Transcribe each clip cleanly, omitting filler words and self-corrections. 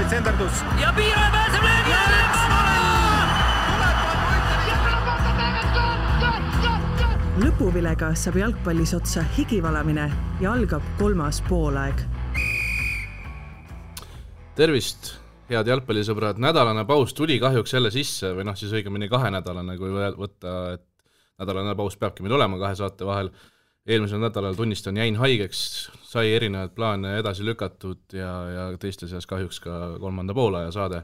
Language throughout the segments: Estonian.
senderdus. Ja Piiraja pääseb löögi ja lõpuvilega saab jalgpallis otsa higivalamine ja algab 3. poolaeg. Tervist, head jalgpallisõbrad. Nädalane paus tuli kahjuks jälle sisse või siis õigemini 2-nädalane, kui võtta, et nädalane paus peabki meil olema 2 saate vahel. Eelmisel nädalal tunnistan jäin haigeks, sai erinevad plaane edasi lükatud ja teiste seas kahjuks ka 3. poolaja saade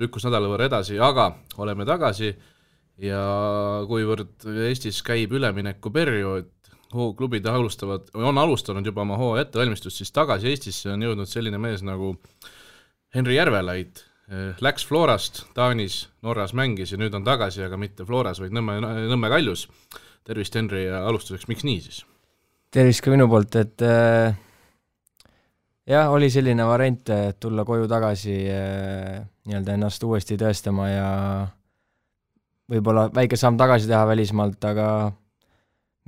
lükkus nädala võrra edasi, aga oleme tagasi ja kuivõrd Eestis käib ülemineku periood, klubid on alustanud juba oma hooaja ettevalmistust, siis tagasi Eestisse on jõudnud selline mees nagu Henri Järvelaid. Läks Florast, Taanis, Norras mängis ja nüüd on tagasi, aga mitte Floras, vaid Nõmme Kaljus. Tervist, Henri, ja alustuseks, miks nii siis? Tervist ka minu poolt, et jah, oli selline variant tulla koju tagasi nii-öelda ennast uuesti tõestama ja võib-olla väike samm tagasi teha välismaalt, aga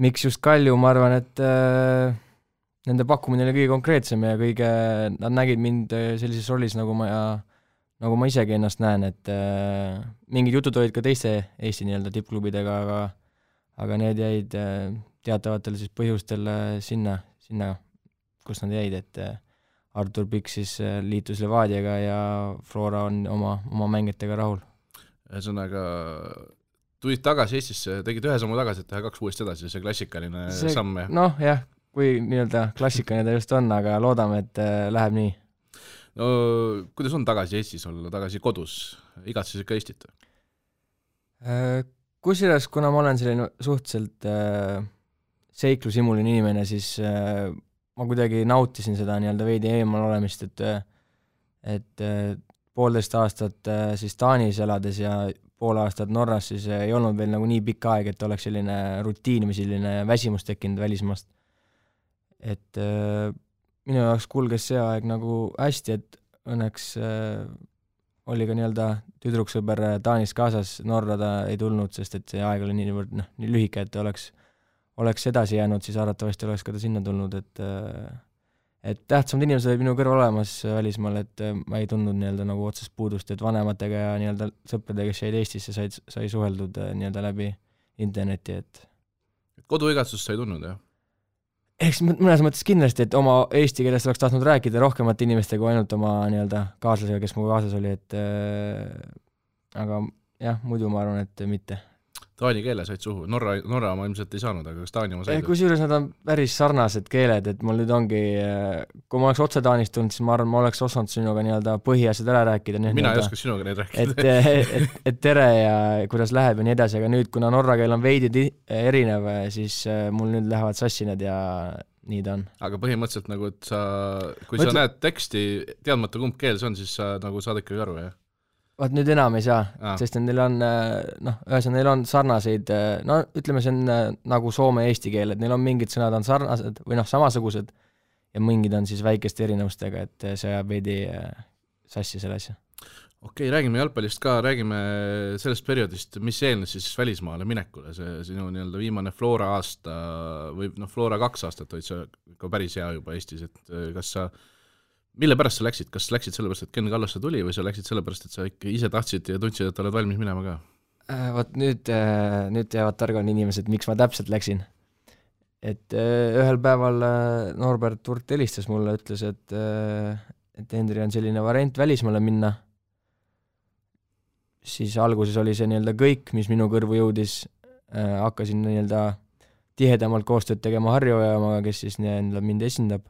miks just Kalju, ma arvan, et nende pakkumine oli kõige konkreetsem ja nad nägid mind sellises rollis, nagu ma isegi ennast näen, et mingid jutud olid ka teiste Eesti nii-öelda tippklubidega, aga need jäid teatavatel siis põhjustel sinna, kus nad jäid, et Artur Pikk siis liitus Levadiaga ja Flora on oma mängijatega rahul. Ühesõnaga, tulid tagasi Eestisse, tegid ühe sammu tagasi, et teha 2 uuesti edasi, see klassikaline samm. Noh, jah, kui nii-öelda klassikaline ta just on, aga loodame, et läheb nii. No, kuidas on tagasi Eestis olla, tagasi kodus? Igatses ikka Eestit? Kusjuures, kuna ma olen selline suhteliselt seiklusimuline inimene, siis ma kuidagi nautisin seda nii-öelda veidi eemal olemist, et 1,5 aastat siis Taanis elades ja 0,5 aastat Norras, siis ei olnud veel nagu nii pikk aeg, et oleks selline rutiin või selline väsimus tekkinud välismaast. Et minu jaoks kulges see aeg nagu hästi, et õnneks oli ka nii-öelda tüdruksõber Taanis kaasas, Norra ta ei tulnud, sest et see aeg oli nii lühike, et oleks edasi jäänud, siis arvatavasti oleks ka ta sinna tulnud, et tähtsamad inimesed olid minu kõrval olemas välismaal, et ma ei tundnud nii-öelda nagu otsest puudust, et vanematega ja nii-öelda sõpradega, kes jäid Eestisse, sai suheldud nii-öelda läbi interneti, et koduigatsust sai tundnud, jah? Eks mõnes mõttes kindlasti, et oma eesti keelest oleks tahtnud rääkida rohkemate inimestega kui ainult oma nii-öelda kaaslasega, kes mu kaasas oli, et aga jah, muidu ma arvan, et mitte. Taani keele said suhu, Norra ma ilmselt ei saanud, aga kas Taani oma said? Kusjuures nad on päris sarnased keeled, et mul nüüd ongi, kui ma oleks otse Taanist tulnud, siis ma arvan, ma oleks osanud sinuga nii-öelda põhiasjad ära rääkida. Mina ei oska sinuga neid rääkida. Et tere ja kuidas läheb ja nii edasi, aga nüüd, kuna norra keel on veidi erinev, siis mul nüüd lähevad sassi need ja nii ta on. Aga põhimõtteliselt nagu, et kui sa näed teksti teadmata kumb keel see on, siis sa nagu saad ikkagi aru, jah? Vaat nüüd enam ei saa, sest neil on, neil on sarnaseid, ütleme see on nagu soome eesti keel, et neil on mingid sõnad on sarnased või samasugused ja mingid on siis väikeste erinevustega, et see jääb veidi sassi selle asja. Okei, räägime jalgpallist ka, räägime sellest perioodist, mis eelnes siis välismaale minekule, see sinu nii-öelda viimane Flora aasta või Flora 2 aastat olid see ka päris hea juba Eestis, et kas sa mille pärast sa läksid? Kas läksid sellepärast, et Ken Kallasse tuli või sa läksid sellepärast, et sa ikka ise tahtsid ja tundsid, et oled valmis minema ka? Vaat nüüd teavad targad inimesed, miks ma täpselt läksin. Et ühel päeval Norbert Turt helistas mulle, ütles, et Henri on selline variant välismaale minna. Siis alguses oli see nii-öelda kõik, mis minu kõrvu jõudis. Hakkasin nii-öelda tihedamalt koostööd tegema Harjuojaamaga, kes siis nii-öelda mind esindab.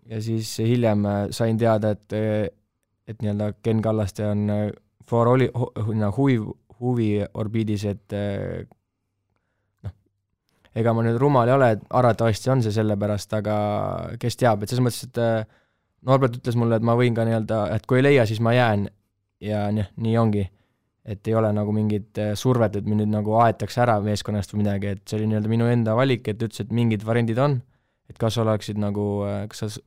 Ja siis hiljem sain teada, et nii-öelda Ken Kallaste on Flora oli huvi orbiidis, et ega ma nüüd rumal ei ole, et arvatavasti on see sellepärast, aga kes teab, et selles mõttes, et Norbert ütles mulle, et ma võin ka nii-öelda, et kui ei leia, siis ma jään ja nii ongi, et ei ole nagu mingit survet, et mind nüüd nagu aetakse ära meeskonnast või midagi, et see oli nii-öelda minu enda valik, et ütles, et mingid variandid on, et kas oleksid nagu, kas sa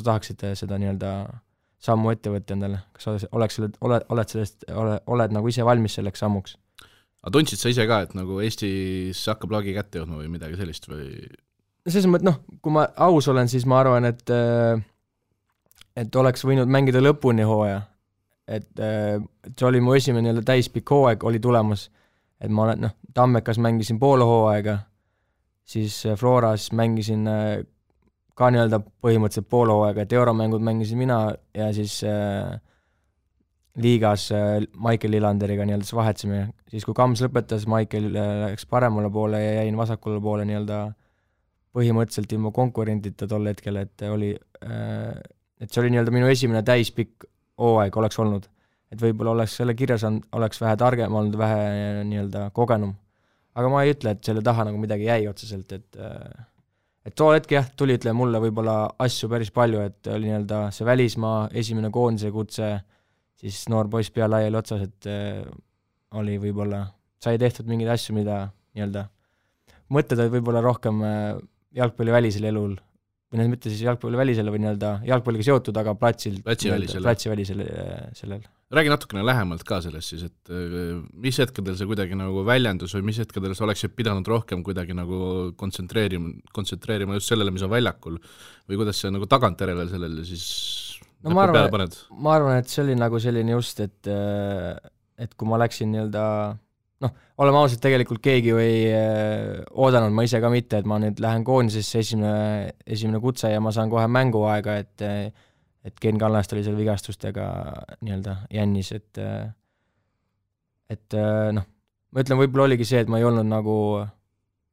tahaksid seda nii-öelda sammu ette võtta endale, kas oled nagu ise valmis selleks sammuks? Aga tundsid sa ise ka, et nagu Eestis hakkab lagi kätte jõudma või midagi sellist või? Selles mõttes, kui ma aus olen, siis ma arvan, et et oleks võinud mängida lõpuni hooaja, et see oli mu esimene nii-öelda täispikk hooaeg oli tulemas, et ma olen, Tammekas mängisin poole hooaega, siis Floras mängisin ka nii-öelda põhimõtteliselt poole hooaega, et euromängud mängisin mina ja siis liigas Michael Lillanderiga nii-öelda vahetasime, siis kui Kams lõpetas, Michael läks paremale poole ja jäin vasakule poole nii-öelda põhimõtteliselt ilma konkurentita tol hetkel, et oli, et see oli nii-öelda minu esimene täispikk hooaeg oleks olnud, et võib-olla oleks selle kirjas oleks vähe targem olnud, vähe nii-öelda kogenum, aga ma ei ütle, et selle taha nagu midagi jäi otseselt, et too hetk jah, tuli ütleme mulle võib-olla asju päris palju, et oli nii-öelda see välismaa, esimene koondise kutse, siis noor poiss pea laiali otsas, et oli võib-olla, sai tehtud mingeid asju, mida nii-öelda mõtted olid võib-olla rohkem jalgpallivälisel elul, või mitte siis jalgpallivälisel või nii-öelda jalgpalliga seotud, aga platsivälisel sellel. Räägi natukene lähemalt ka sellest siis, et mis hetkedel see kuidagi nagu väljendus või mis hetkedel sa oleksid pidanud rohkem kuidagi nagu kontsentreerima just sellele, mis on väljakul või kuidas see nagu tagantjärele sellele siis no ma arvan, et see oli nagu selline just, et kui ma läksin nii-öelda oleme ausalt, tegelikult keegi ju ei oodanud, ma ise ka mitte, et ma nüüd lähen koondisesse esimene kutse ja ma saan kohe mänguaega, et Ken Kallast oli seal vigastustega nii-öelda jännis, et ma ütlen, võib-olla oligi see, et ma ei olnud nagu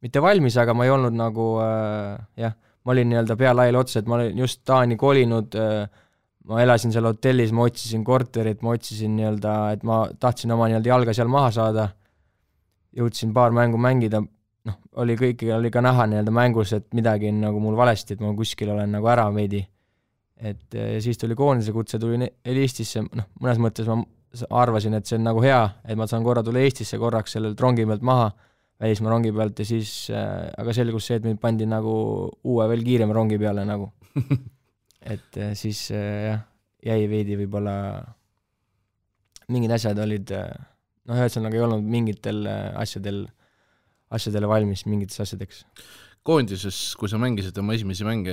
mitte valmis, aga ma ei olnud nagu ma olin nii-öelda pea laiali otsa, et ma olin just Taani kolinud, ma elasin seal hotellis, ma otsisin korterit, ma otsisin nii-öelda, et ma tahtsin oma nii-öelda jalga seal maha saada, jõudsin paar mängu mängida, oli ka näha nii-öelda mängus, et midagi on nagu mul valesti, et ma kuskil olen nagu ära veidi. Et siis tuli koondise kutse, tuli Eestisse, mõnes mõttes ma arvasin, et see on nagu hea, et ma saan korra tulla Eestisse korraks sellelt rongi pealt maha, välismaa rongi pealt ja siis, aga selgus see, et mind pandi nagu uue veel kiirema rongi peale nagu. Et siis jäi veidi võib-olla mingid asjad olid, ühesõnaga ei olnud mingitel asjadele valmis, mingites asjadeks. Koondises, kui sa mängisid oma esimesi mänge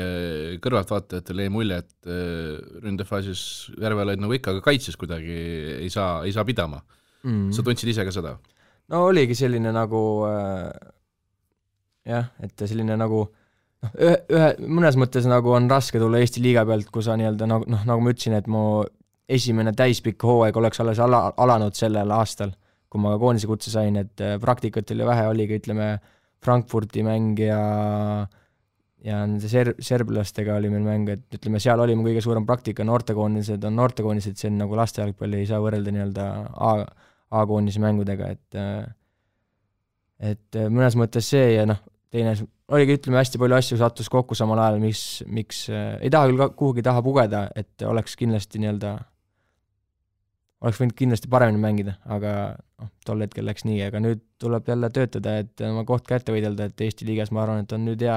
kõrvaltvaatajatele, jäi mulje, et ründefaasis Järve olid nagu ikka, aga kaitses kuidagi ei saa pidama. Sa tundsid ise ka seda? No oligi selline nagu et selline nagu mõnes mõttes nagu on raske tulla Eesti liiga pealt, kui sa nii-öelda nagu ma ütlesin, et mu esimene täispikk hooaeg oleks alles alanud sellel aastal, kui ma koondise kutse sain, et praktikat oli vähe, oligi, ütleme, Frankfurti mäng ja nende serblastega oli meil mäng, et ütleme, seal oli mu kõige suurem praktika, noortekoondised on noortekoondised, see on nagu lastejalgpalli ei saa võrrelda nii-öelda A-koondise mängudega, et mõnes mõttes see ja teine oligi, ütleme, hästi palju asju sattus kokku samal ajal, miks ei taha küll kuhugi taha pugeda, et oleks kindlasti nii-öelda oleks võinud kindlasti paremini mängida, aga tol hetkel läks nii, aga nüüd tuleb jälle töötada, et oma koht kätte võidelda, et Eesti liigas ma arvan, et on nüüd hea,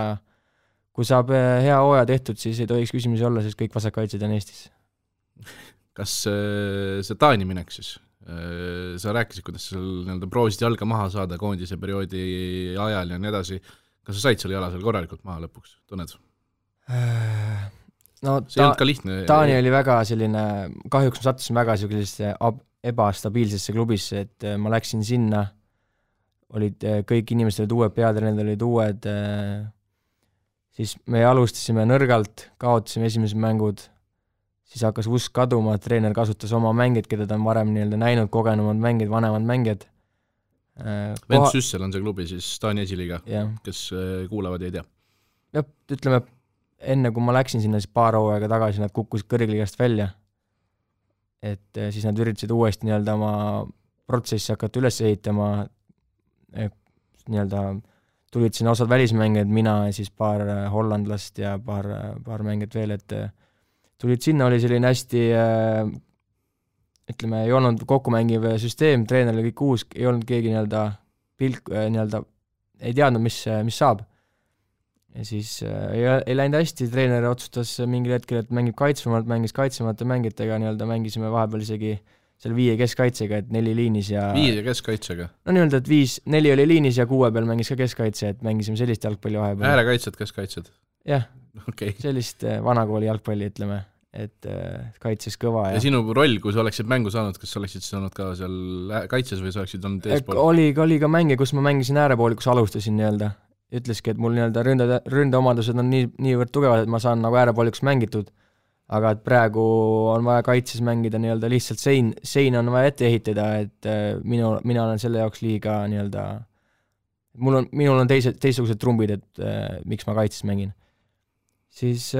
kui saab hea hooaja tehtud, siis ei tohiks küsimusi olla, sest kõik vasakkaitsed on Eestis. Kas see Taani minek siis? Sa rääkisid, kuidas sa proovisid jalga maha saada koondise perioodi ajal ja nii edasi. Kas sa said selle jala seal korralikult maha lõpuks, tunned? See ei olnud ka lihtne. Taani oli väga selline, kahjuks ma sattusin väga sellisesse ebastabiilsesse klubisse, et ma läksin sinna, olid kõik inimesed olid uued, peatreenid olid uued, siis me alustasime nõrgalt, kaotasime esimesed mängud, siis hakkas usk kaduma, treener kasutas oma mängid, keda ta on varem nii-öelda näinud, kogenumad mängid, vanemad mängid. Vent Süssel on see klubi siis Taani esiliiga, kes kuulavad ja ei tea. Ja, ütleme, enne kui ma läksin sinna, siis paar hooaega tagasi nad kukkusid kõrgliigast välja, et siis nad üritasid uuesti nii-öelda oma protsessi hakata üles ehitama, nii-öelda tulid sinna osad välismängijad, mina ja siis paar hollandlast ja paar mängijat veel, et tulid sinna, oli selline hästi, ütleme, ei olnud kokkumängiv süsteem, treener oli kõik uus, ei olnud keegi nii-öelda ei teadnud, mis saab. Ja siis ei läinud hästi, treener otsustas mingil hetkel, et mängib kaitsvamalt, mängis kaitsvamate mängitega, nii-öelda mängisime vahepeal isegi seal 5 keskkaitsega, et 4 liinis ja 5 keskkaitsega? No nii-öelda, et 4 oli liinis ja 6 peal mängis ka keskkaitse, et mängisime sellist jalgpalli vahepeal. Äärekaitsed, keskkaitsed? Jah, sellist vanakooli jalgpalli, ütleme. et kaitses kõva ja sinu roll, kui sa oleksid mängu saanud, kas sa oleksid saanud ka seal kaitses või sa oleksid olnud eespool? Oli ka mänge, kus ma mängisin äärepooli, kus alustasin nii-öelda. Ütleski, et mul nii-öelda ründeomadused on niivõrd tugevad, et ma saan nagu äärepooliks mängitud, aga et praegu on vaja kaitses mängida nii-öelda lihtsalt sein on vaja ette ehitada, et mina olen selle jaoks liiga nii-öelda, minul on teistsugused trumbid, et miks ma kaitses mängin. Siis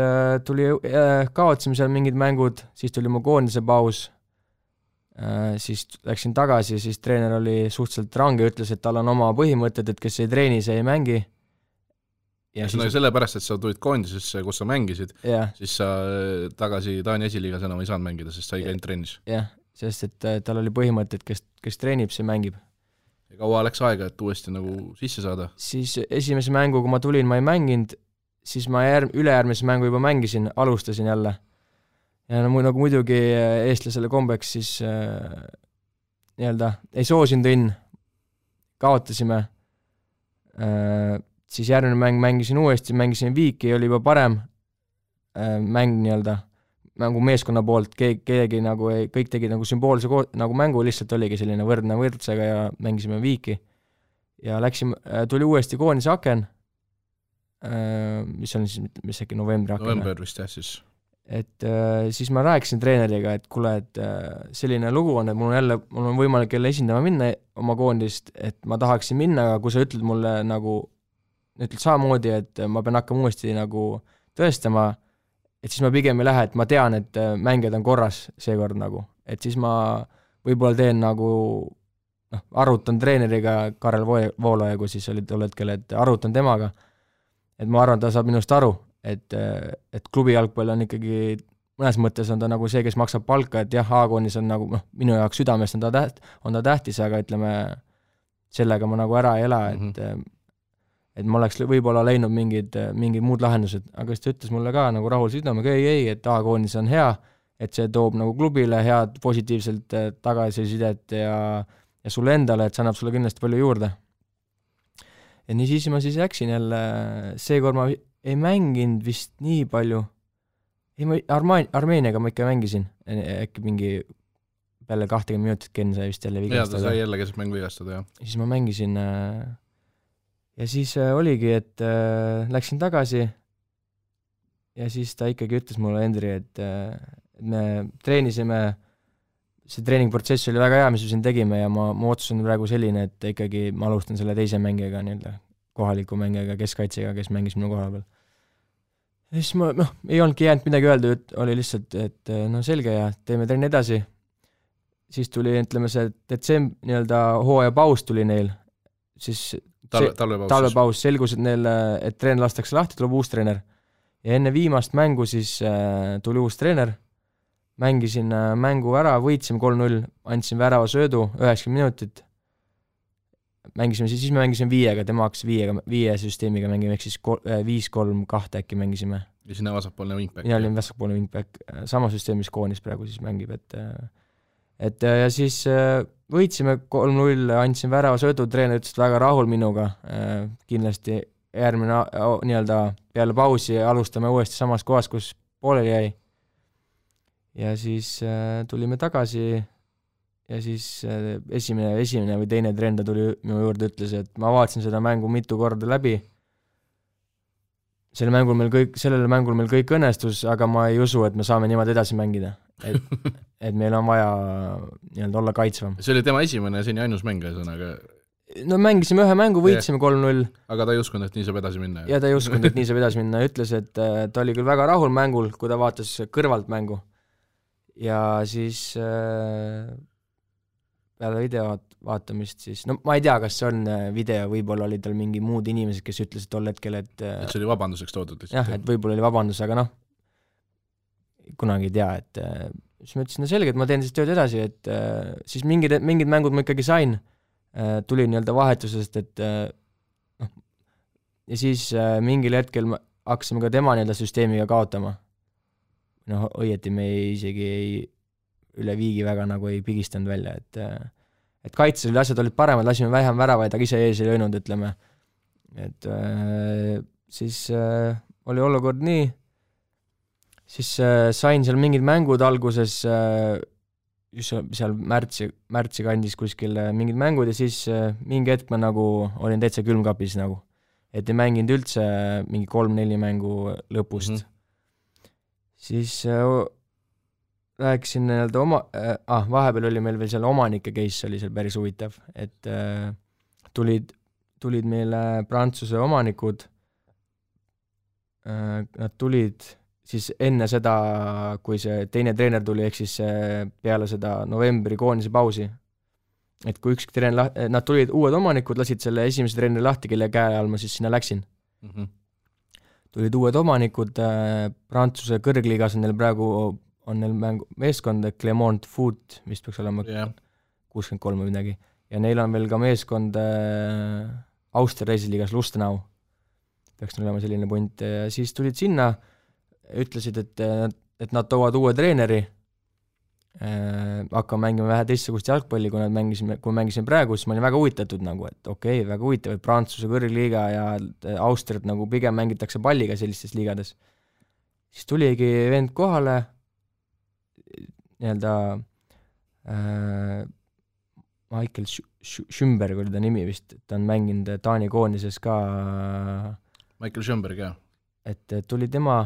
kaotasime seal mingid mängud, siis tuli mu koondise paus, siis läksin tagasi, siis treener oli suhteliselt range, ütles, et tal on oma põhimõtted, et kes ei treeni, see ei mängi. Ja siis sellepärast, et sa tulid koondisesse, kus sa mängisid, siis sa tagasi Taani esiliigas enam ei saanud mängida, sest sa ei käinud trennis. Jah, sest et tal oli põhimõte, et kes treenib, see mängib. Ja kaua läks aega, et uuesti nagu sisse saada? Siis esimese mängu, kui ma tulin, ma ei mänginud, siis ma ülejärgmise mängu juba mängisin, alustasin jälle. Ja nagu muidugi eestlasele kombeks, siis nii-öelda ei soosinud õnn, kaotasime, siis järgmine mäng mängisin uuesti, mängisin Viiki, oli juba parem mäng nii-öelda, mängu meeskonna poolt, keegi nagu kõik tegi nagu sümboolse nagu mängu, lihtsalt oligi selline võrdne võrdsega ja mängisime Viiki. Ja tuli uuesti koondise aken, mis on siis äkki novembri aken. November vist jah siis. Et siis ma rääkisin treeneriga, et kuule, et selline lugu on, et mul on võimalik jälle esindama minna oma koondist, et ma tahaksin minna, aga kui sa ütled mulle nagu, ütled samamoodi, et ma pean hakkama uuesti nagu tõestama, et siis ma pigem ei lähe, et ma tean, et mängijad on korras seekord nagu, et siis ma võib-olla teen nagu, arutan treeneriga Karel Voolaja, kui siis oli tol hetkel, et arutan temaga, et ma arvan, ta saab minust aru, et klubi jalgpall on ikkagi, mõnes mõttes on ta nagu see, kes maksab palka, et jah, A-koonis on nagu, minu jaoks südamest on ta tähtis, aga ütleme, sellega ma nagu ära ei ela, et ma oleks võib-olla leidnud mingid muud lahendused, aga siis ta ütles mulle ka nagu rahul südamega, ei, et A-koonis on hea, et see toob nagu klubile head positiivselt tagasisidet ja sulle endale, et see annab sulle kindlasti palju juurde. Ja nii siis ma siis läksin jälle, seekord ma ei mänginud vist nii palju, Armeeniaga ma ikka mängisin, äkki mingi peale 20 minutit Ken sai vist jälle vigastada. Ja ta sai jälle keset mängu vigastada, jah. Siis ma mängisin ja siis oligi, et läksin tagasi ja siis ta ikkagi ütles mulle, Endri, et me treenisime, see treeningprotsess oli väga hea, mis me siin tegime ja ma otsusin praegu selline, et ikkagi ma alustan selle teise mängijaga, kohaliku mängijaga, keskkaitsega, kes mängis minu koha peal. Ja siis ma, ei olnudki jäänud midagi öelda, oli lihtsalt, et selge ja teeme trenni edasi. Siis tuli, ütleme see nii-öelda hooaja paus tuli neil, siis talvepaus selgus, et treener lastakse lahti, tuleb uus treener. Ja enne viimast mängu siis tuli uus treener, mängisin mängu ära, võitsime 3-0, andsin värava söödu 90 minutit, siis me mängisime 5-ga, tema hakkas 5 süsteemiga mängime, ehk siis 5-3-2 äkki mängisime. Ja sinna vasakpoolne wingback. Mina olin vasakpoolne wingback, sama süsteemis koonis praegu siis mängib, et ja siis võitsime 3-0, andsin värava söödu, treener ütles väga rahul minuga, kindlasti järgmine nii-öelda peale pausi alustame uuesti samas kohas, kus pooleli jäi. Ja siis tulime tagasi ja siis esimene või teine treener tuli minu juurde, ütles, et ma vaatasin seda mängu mitu korda läbi. Sellele mängul meil kõik õnnestus, aga ma ei usu, et me saame niimoodi edasi mängida. Et meil on vaja nii-öelda olla kaitsvam. See oli tema esimene ja seni ainus mäng, aga... No mängisime ühe mängu, võitsime 3-0. Aga ta ei uskunud, et nii saab edasi minna. Ja ta ei uskunud, et nii saab edasi minna. Ütles, et ta oli küll väga rahul mängul, kui ta vaatas kõrvalt mängu. Ja siis peale video vaatamist siis, ma ei tea, kas see on video, võib-olla oli tal mingi muud inimesed, kes ütlesid tol hetkel, et see oli vabanduseks toodud lihtsalt. Jah, et võib-olla oli vabandus, aga kunagi ei tea, et siis ma ütlesin, selge, et ma teen siis tööd edasi, et siis mingid mängud ma ikkagi sain, tuli nii-öelda vahetusest, et ja siis mingil hetkel hakkasime ka tema nii-öelda süsteemiga kaotama. Õieti me isegi üle viigi väga nagu ei pigistanud välja, et kaitses oli asjad olid paremad, lasime vähem väravaid, aga ise ees ei löönud, ütleme. Et siis oli olukord nii, siis sain seal mingid mängud alguses, just seal märtsi kandis kuskil mingid mängud ja siis mingi hetk ma nagu olin täitsa külmkapis nagu, et ei mänginud üldse mingi 3-4 mängu lõpust. Siis rääkisin nii-öelda vahepeal oli meil veel seal omanike case oli seal päris huvitav, et tulid meile Prantsuse omanikud, nad tulid siis enne seda, kui see teine treener tuli, ehk siis peale seda novembri koondise pausi, et kui üks treener, nad tulid uued omanikud, lasid selle esimese treeneri lahti, kelle käe all ma siis sinna läksin. Tulid uued omanikud, Prantsuse kõrgliigas on neil praegu meeskond Clermont Foot, mis peaks olema 63 või midagi, ja neil on veel ka meeskond Austria reisiliigas Lustenau, peaks olema selline punt, ja siis tulid sinna, ütlesid, et nad toovad uue treeneri, hakkame mängima vähe teistsugust jalgpalli, kui mängisime praegu, siis ma olin väga huvitatud nagu, et okei, väga huvitav, et Prantsuse kõrgliiga ja Austriat nagu pigem mängitakse palliga sellistes liigades. Siis tuligi vend kohale, nii-öelda Michael Schümberg oli ta nimi vist, ta on mänginud Taani koondises ka. Michael Schümberg, jah. Et tuli tema,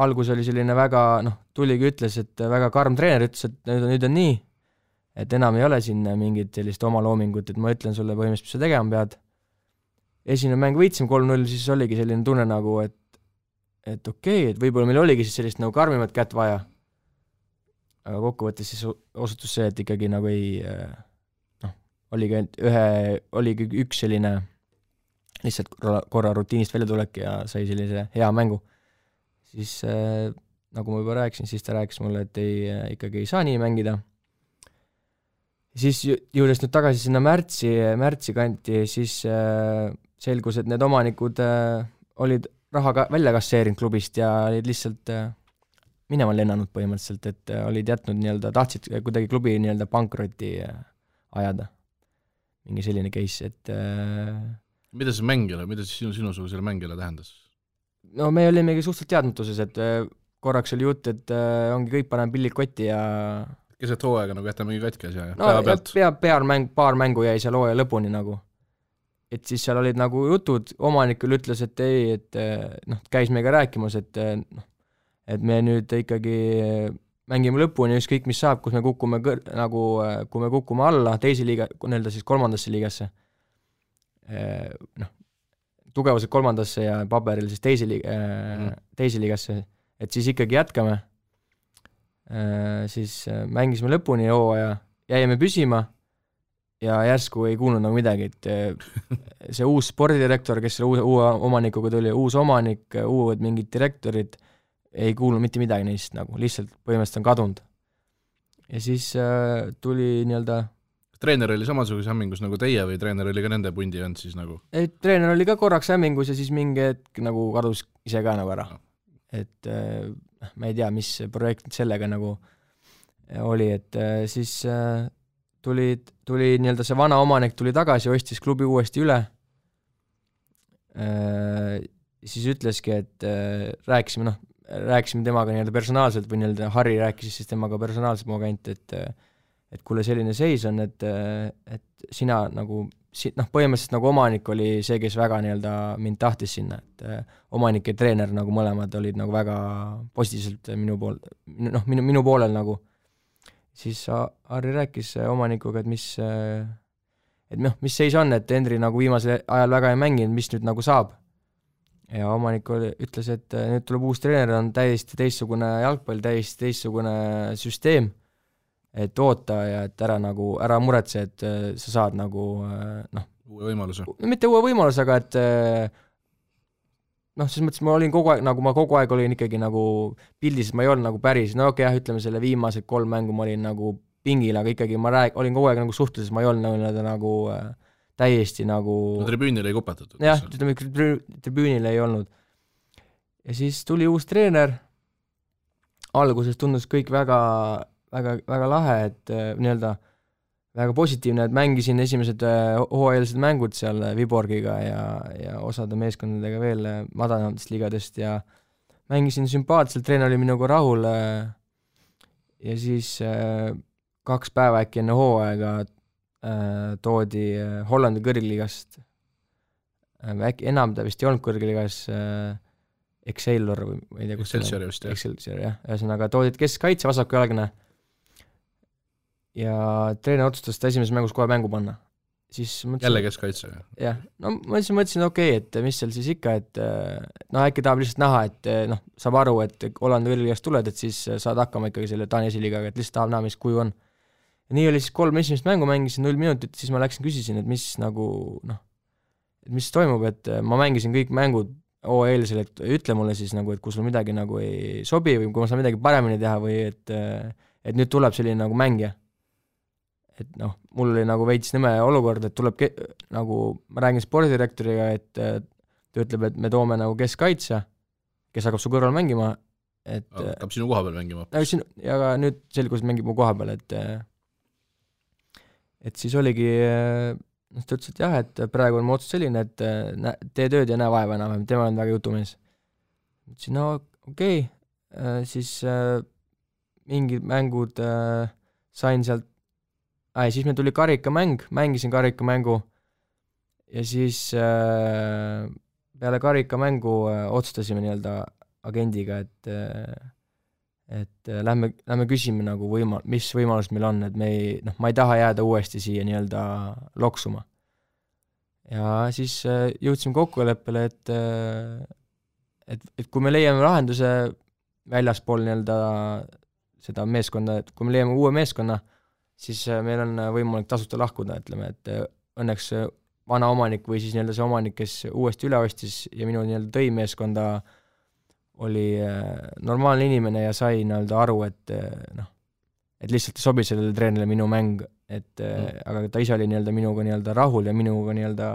algus oli selline väga, tuligi ütles, et väga karm treener, ütles, et nüüd on nii, et enam ei ole siin mingit sellist oma loomingut, et ma ütlen sulle põhimõtteliselt, mis sa tegema pead. Esimene mäng võitsime 3-0, siis oligi selline tunne nagu, et okei, et võib-olla meil oligi siis sellist nagu karmimat kätt vaja. Aga kokkuvõttes siis osutus see, et ikkagi nagu ei, oligi üks selline lihtsalt korra rutiinist välja tulek ja sai sellise hea mängu. Siis, nagu ma juba rääkisin, siis ta rääkis mulle, et ikkagi ei saa nii mängida. Siis jõudes nüüd tagasi sinna märtsi kanti, siis selgus, et need omanikud olid raha välja kasseerinud klubist ja olid lihtsalt minema lennanud põhimõtteliselt, et olid jätnud nii-öelda, tahtsid kuidagi klubi nii-öelda pankroti ajada. Mingi selline case, et mida see mängile, mida siis sinusugusele mängile tähendas? No me olimegi suhteliselt teadmatuses, et korraks oli jutt, et ongi kõik paneme pillid kotti ja keset hooaega nagu jätame katki asja ja päeva pealt? Paar mängu jäi seal hooaja lõpuni nagu. Et siis seal olid nagu jutud, omanikul ütles, et ei, et käis meiega rääkimas, et me nüüd ikkagi mängime lõpuni, ükskõik mis saab, kus me kukume kui me kukume alla teise liiga, nii-öelda siis kolmandasse liigasse, tugevused kolmandasse ja paberil siis teise liigasse, et siis ikkagi jätkame, siis mängisime lõpuni hooaja, jäime püsima ja järsku ei kuulnud nagu midagi, et see uus spordidirektor, kes selle uue omanikuga tuli, uus omanik, uued mingid direktorid, ei kuulnud mitte midagi neist nagu, lihtsalt põhimõtteliselt on kadunud. Ja siis tuli nii-öelda treener oli samasuguse hämmingus nagu teie või treener oli ka nende pundi vend siis nagu? Ei, treener oli ka korraks hämmingus ja siis mingi hetk nagu kadus ise ka nagu ära. Et ma ei tea, mis projekt sellega nagu oli, et siis tuli nii-öelda see vana omanik tuli tagasi, ostis klubi uuesti üle. Siis ütleski, et rääkisime temaga nii-öelda personaalselt või nii-öelda Harri rääkis siis temaga personaalselt mu agent, et kuule selline seis on, et sina nagu, põhimõtteliselt nagu omanik oli see, kes väga nii-öelda mind tahtis sinna, et omanik ja treener nagu mõlemad olid nagu väga positiivselt minu poolel nagu. Siis Harri rääkis omanikuga, et mis seis on, et Henri nagu viimasel ajal väga ei mänginud, mis nüüd nagu saab. Ja omanik ütles, et nüüd tuleb uus treener, on täiesti teistsugune jalgpall, täiesti teistsugune süsteem, et oota ja et ära muretse, et sa saad nagu uue võimaluse. Mitte uue võimaluse, aga et siis mõttes ma olin kogu aeg olin ikkagi nagu pildis, et ma ei olnud nagu päris, ütleme selle viimased 3 mängu ma olin nagu pingil, aga ikkagi ma olin kogu aeg nagu suhtluses, ma ei olnud nagu täiesti nagu tribüünile ei kupatatud. Jah, tribüünile ei olnud. Ja siis tuli uus treener, alguses tundus kõik väga, väga, väga lahe, et nii-öelda väga positiivne, et mängisin esimesed hooajalised mängud seal Viborgiga ja osade meeskondadega veel madalamatest liigadest ja mängisin sümpaatselt, treener oli minuga rahul ja siis 2 päeva äkki enne hooaega toodi Hollandi kõrgliigast, äkki enam ta vist ei olnud kõrgliigas, Excelsior või ma ei tea, kus Excelsior vist, jah. Excelsior, jah. Ühesõnaga toodid keskkaitse, vasakujalgne ja treener otsustas ta esimeses mängus kohe mängu panna. Siis mõtlesin, jälle keskkaitse. jah, no ma mõtlesin, okei, et mis seal siis ikka, et äkki tahab lihtsalt näha, et saab aru, et Hollandi kõrgliigast tuled, et siis saad hakkama ikkagi selle Taani esiliigaga, et lihtsalt tahab näha, mis kuju on. Ja nii oli siis 3 esimest mängu, mängisin 0 minutit, siis ma küsisin, et mis nagu, et mis toimub, et ma mängisin kõik mängud eelisel, et ütle mulle siis nagu, et kui sul midagi nagu ei sobi või kui ma saan midagi paremini teha või et nüüd tuleb selline nagu mängija. Et mul oli nagu veits nõme olukord, et tuleb nagu, ma räägin spordidirektoriga, et ta ütleb, et me toome nagu keskkaitse, kes hakkab su kõrval mängima, et hakkab sinu koha peal mängima. Ja ka nüüd selgus mängib mu koha peal, et siis oligi, ta ütles, et jah, et praegu on mu otsus selline, et tee tööd ja näe vaeva enam, tema on väga jutumees. Ütlesin, no okei, siis mingid mängud sain sealt, siis meil tuli karikamäng, mängisin karikamängu ja siis peale karikamängu otsustasime nii-öelda agendiga, et lähme küsime nagu mis võimalus meil on, et ma ei taha jääda uuesti siia nii-öelda loksuma. Ja siis jõudsime kokkuleppele, et kui me leiame lahenduse väljaspool nii-öelda seda meeskonda, et kui me leiame uue meeskonna, siis meil on võimalik tasuta lahkuda, ütleme, et õnneks vana omanik või siis nii-öelda see omanik, kes uuesti üle ostis ja minu nii-öelda tõi meeskonda, oli normaalne inimene ja sai nii-öelda aru, et lihtsalt ei sobi sellele treenile minu mäng, aga ta ise oli nii-öelda minuga nii-öelda rahul ja minuga nii-öelda,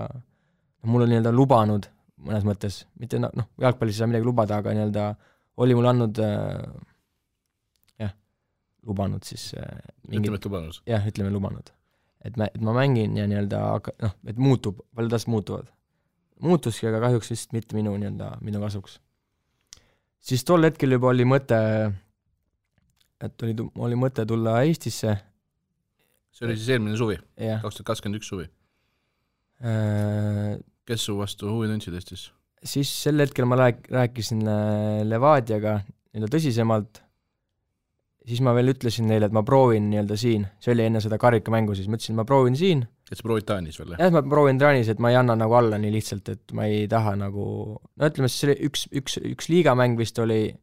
mul oli nii-öelda lubanud mõnes mõttes, mitte jalgpallis ei saa midagi lubada, aga nii-öelda oli mul andnud lubanud siis ütleme lubanud. Et ma mängin ja nii-öelda, et muutub, paljud asjad muutuvad. Muutuski, aga kahjuks vist mitte minu kasuks. Siis tol hetkel juba oli mõte, et oli mõte tulla Eestisse. See oli siis eelmine suvi, 2021 suvi. Kes su vastu huvi tundsid Eestis? Siis sel hetkel ma rääkisin Levadiaga nii-öelda tõsisemalt, siis ma veel ütlesin neile, et ma proovin nii-öelda siin, see oli enne seda karikamängu, siis ma ütlesin, ma proovin siin. Et sa proovid Taanis veel? Jah, ma proovin Taanis, et ma ei anna nagu alla nii lihtsalt, et ma ei taha nagu, ütleme, see üks liigamäng vist oli,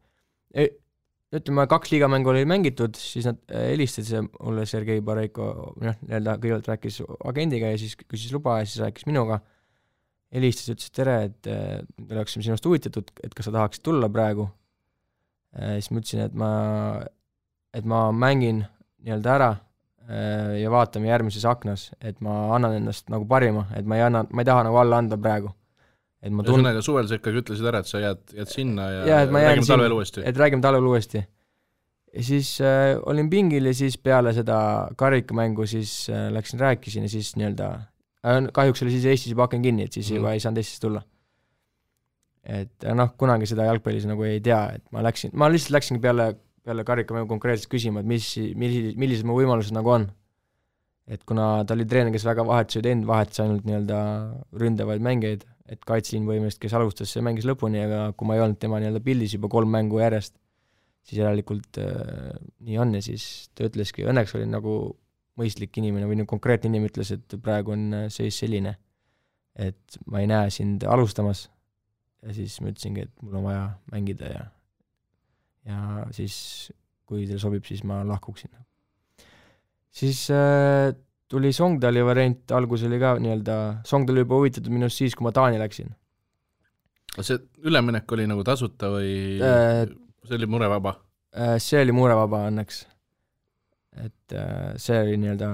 ütleme, 2 liigamängu oli mängitud, siis nad helistasid mulle Sergei Bareiko, nii-öelda kõigepealt rääkis agendiga ja siis küsis luba ja siis rääkis minuga, helistas, ütles, tere, et me oleksime sinust huvitatud, et kas sa tahaksid tulla praegu. Siis ma ütlesin, et ma mängin nii-öelda ära ja vaatame järgmises aknas, et ma annan ennast nagu parima, et ma ei taha nagu alla anda praegu. Ühesõnaga suvel sa ikkagi ütlesid ära, et sa jääd sinna ja räägime talvel uuesti. Et räägime talvel uuesti. Ja siis olin pingil ja siis peale seda karikamängu siis rääkisin ja siis nii-öelda, kahjuks oli siis Eestis juba aken kinni, et siis juba ei saanud Eestis tulla. Et kunagi seda jalgpallis nagu ei tea, et ma lihtsalt läksingi peale karikamängu konkreetselt küsima, et millised mu võimalused nagu on. Et kuna ta oli treener, kes väga vahetus ainult nii-öelda ründavaid mängeid, et kaitsliin võimest, kes alustas, see mängis lõpuni, aga kui ma ei olnud tema nii-öelda pildis juba 3 mängu järjest, siis järelikult nii on ja siis ta ütleski, õnneks oli nagu mõistlik inimene või konkreetne inimene ütles, et praegu on seis selline, et ma ei näe sind alustamas ja siis ma ütlesingi, et mul on vaja mängida ja siis kui teil sobib, siis ma lahkuksin. Siis tuli Songdali variant, algus oli ka nii-öelda, Songdal juba huvitatud minust siis, kui ma Taani läksin. See üleminek oli nagu tasuta või see oli murevaba? See oli murevaba õnneks. Et see oli nii-öelda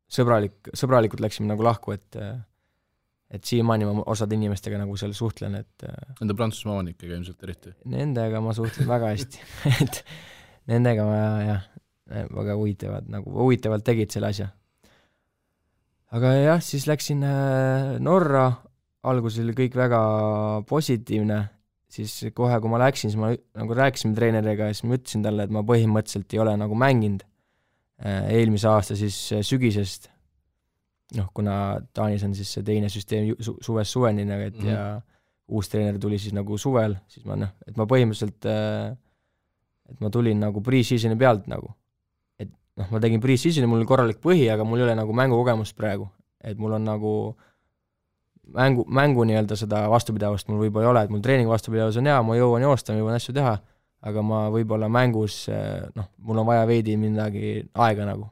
sõbralikult läksime nagu lahku, et siiamaani ma osad inimestega nagu seal suhtlen, et Nende Prantsusmaa omanikega ilmselt eriti? Nendega ma suhtlen väga hästi, et nendega ma väga huvitavalt tegid selle asja. Aga jah, siis läksin Norra, alguses oli kõik väga positiivne, siis kohe, kui ma läksin, siis ma nagu rääkisime treeneriga ja siis ma ütlesin talle, et ma põhimõtteliselt ei ole nagu mänginud eelmise aasta siis sügisest, kuna Taanis on siis see teine süsteem suvest suveni, et ja uus treener tuli siis nagu suvel, siis ma et ma põhimõtteliselt, et ma tulin nagu pre-seasoni pealt nagu, et ma tegin pre-seasoni, mul oli korralik põhi, aga mul ei ole nagu mängukogemust praegu, et mul on nagu mängu nii-öelda seda vastupidavust mul võib-olla ei ole, et mul treening vastupidavus on hea, ma jõuan joosta, ma jõuan asju teha, aga ma võib-olla mängus, mul on vaja veidi midagi aega nagu.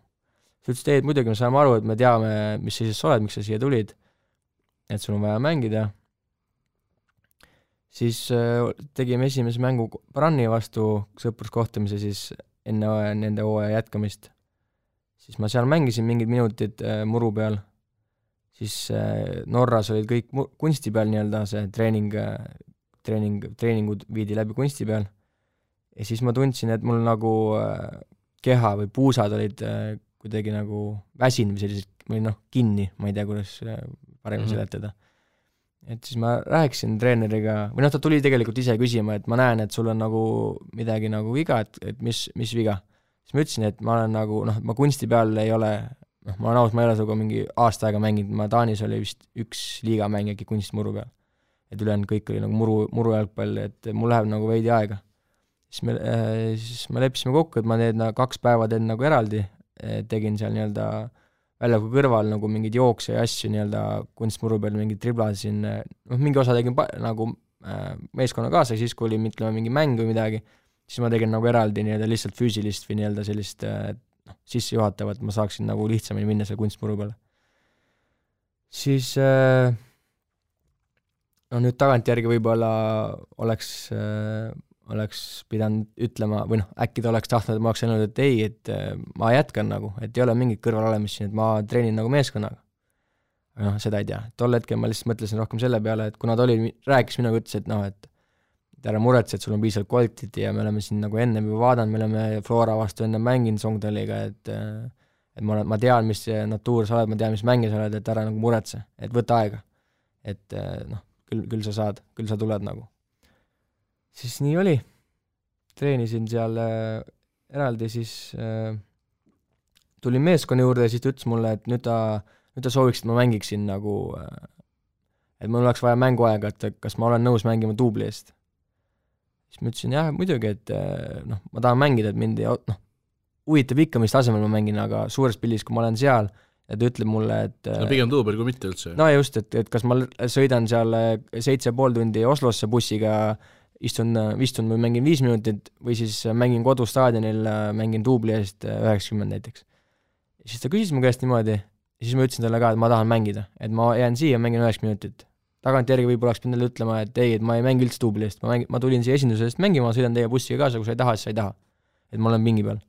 Sa ütlesid, et muidugi me saame aru, et me teame, mis sa siis oled, miks sa siia tulid, et sul on vaja mängida. Siis tegime esimese mängu Branni vastu sõpruskohtumise siis enne nende hooaja jätkamist. Siis ma seal mängisin mingid minutid muru peal. Siis Norras olid kõik kunsti peal nii-öelda, see treeningud viidi läbi kunsti peal. Ja siis ma tundsin, et mul nagu keha või puusad olid kuidagi nagu väsin või sellised, või kinni, ma ei tea, kuidas paremini seletada. Et siis ma rääkisin treeneriga, või ta tuli tegelikult ise küsima, et ma näen, et sul on nagu midagi nagu viga, et mis viga. Siis ma ütlesin, et ma olen nagu, ma kunsti peal ei ole, ma olen aus, ma ei ole sinuga mingi aasta aega mänginud, ma Taanis oli vist üks liigamäng äkki kunstmuru peal. Et ülejäänud kõik oli nagu muru jalgpall, et mul läheb nagu veidi aega. Siis me leppisime kokku, et ma need 2 päeva teen nagu eraldi, tegin seal nii-öelda väljaku kõrval nagu mingid jookse ja asju nii-öelda kunstmuru peal, mingid triblasin, mingi osa tegin nagu meeskonna kaasa, siis kui oli mingi mäng või midagi, siis ma tegin nagu eraldi nii-öelda lihtsalt füüsilist või nii-öelda sellist sisse juhatavat, ma saaksin nagu lihtsamini minna selle kunstmuru peale. Siis nüüd tagantjärgi võib-olla oleks pidanud ütlema, või äkki ta oleks tahtnud, et ma oleks öelnud, et ei, et ma jätkan nagu, et ei ole mingit kõrvalolemist siin, et ma treenin nagu meeskonnaga. Aga seda ei tea. Tol hetkel ma lihtsalt mõtlesin rohkem selle peale, et kuna ta rääkis minuga, ütles, et ära muretse, et sul on piisavalt kvaliteeti ja me oleme siin nagu enne juba vaadanud, me oleme Flora vastu enne mänginud Songdaliga, et ma tean, mis natuur sa oled, ma tean, mis mänge sa oled, et ära nagu muretse, et võta aega. Et küll sa saad, küll sa tuled nagu. Siis nii oli. Treenisin seal eraldi, siis tulin meeskonna juurde ja siis ta ütles mulle, et nüüd ta sooviks, et ma mängiksin nagu, et mul oleks vaja mänguaega, et kas ma olen nõus mängima duubli eest. Siis ma ütlesin, jah, muidugi, et ma tahan mängida, et mind huvitab ikka, mis tasemel ma mängin, aga suures pildis, kui ma olen seal ja ta ütleb mulle, et pigem duubel kui mitte üldse. No just, et kas ma sõidan seal 7,5 tundi Oslosse bussiga, istun või mängin 5 minutit või siis mängin kodustaadionil, mängin duubli eest 90 näiteks. Ja siis ta küsis mu käest niimoodi ja siis ma ütlesin talle ka, et ma tahan mängida, et ma jään siia ja mängin 90 minutit. Tagantjärgi võib-olla oleks pidanud ütlema, et ei, et ma ei mängi üldse duubli eest, ma tulin siia esindusest mängima, ma sõidan teie bussiga kaasa, kui sa ei taha, siis sa ei taha. Et ma olen pingi peal.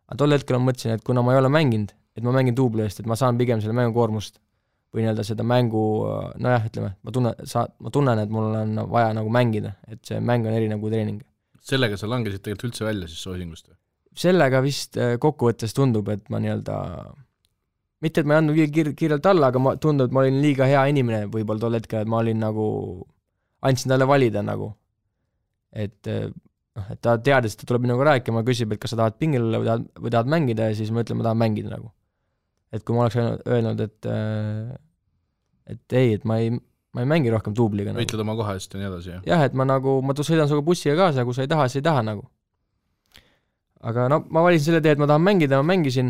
Aga tol hetkel ma mõtlesin, et kuna ma ei ole mänginud, et ma mängin duubli eest, et ma saan pigem selle mängu koormust või nii-öelda seda mängu, ütleme, ma tunnen, et mul on vaja nagu mängida, et see mäng on eri nagu treening. Sellega sa langesid tegelikult üldse välja siis soosingust? Sellega vist kokkuvõttes tundub, et ma nii-öelda mitte, et ma ei andnud kiirelt alla, aga tundub, et ma olin liiga hea inimene võib-olla tol hetkel, et ma olin nagu, andsin talle valida nagu. Et ta teadis, et ta tuleb minuga rääkima, küsib, et kas sa tahad pingil olla või tahad mängida ja siis ma ütlen, ma tahan mängida nagu. Et kui ma oleks öelnud, et ei, et ma ei mängi rohkem duubliga nagu. Võitled oma koha eest ja nii edasi, jah? Jah, et ma sõidan suga bussiga kaasa, kui sa ei taha, siis ei taha nagu. Aga ma valisin selle tee, et ma tahan mängida, ma mängisin,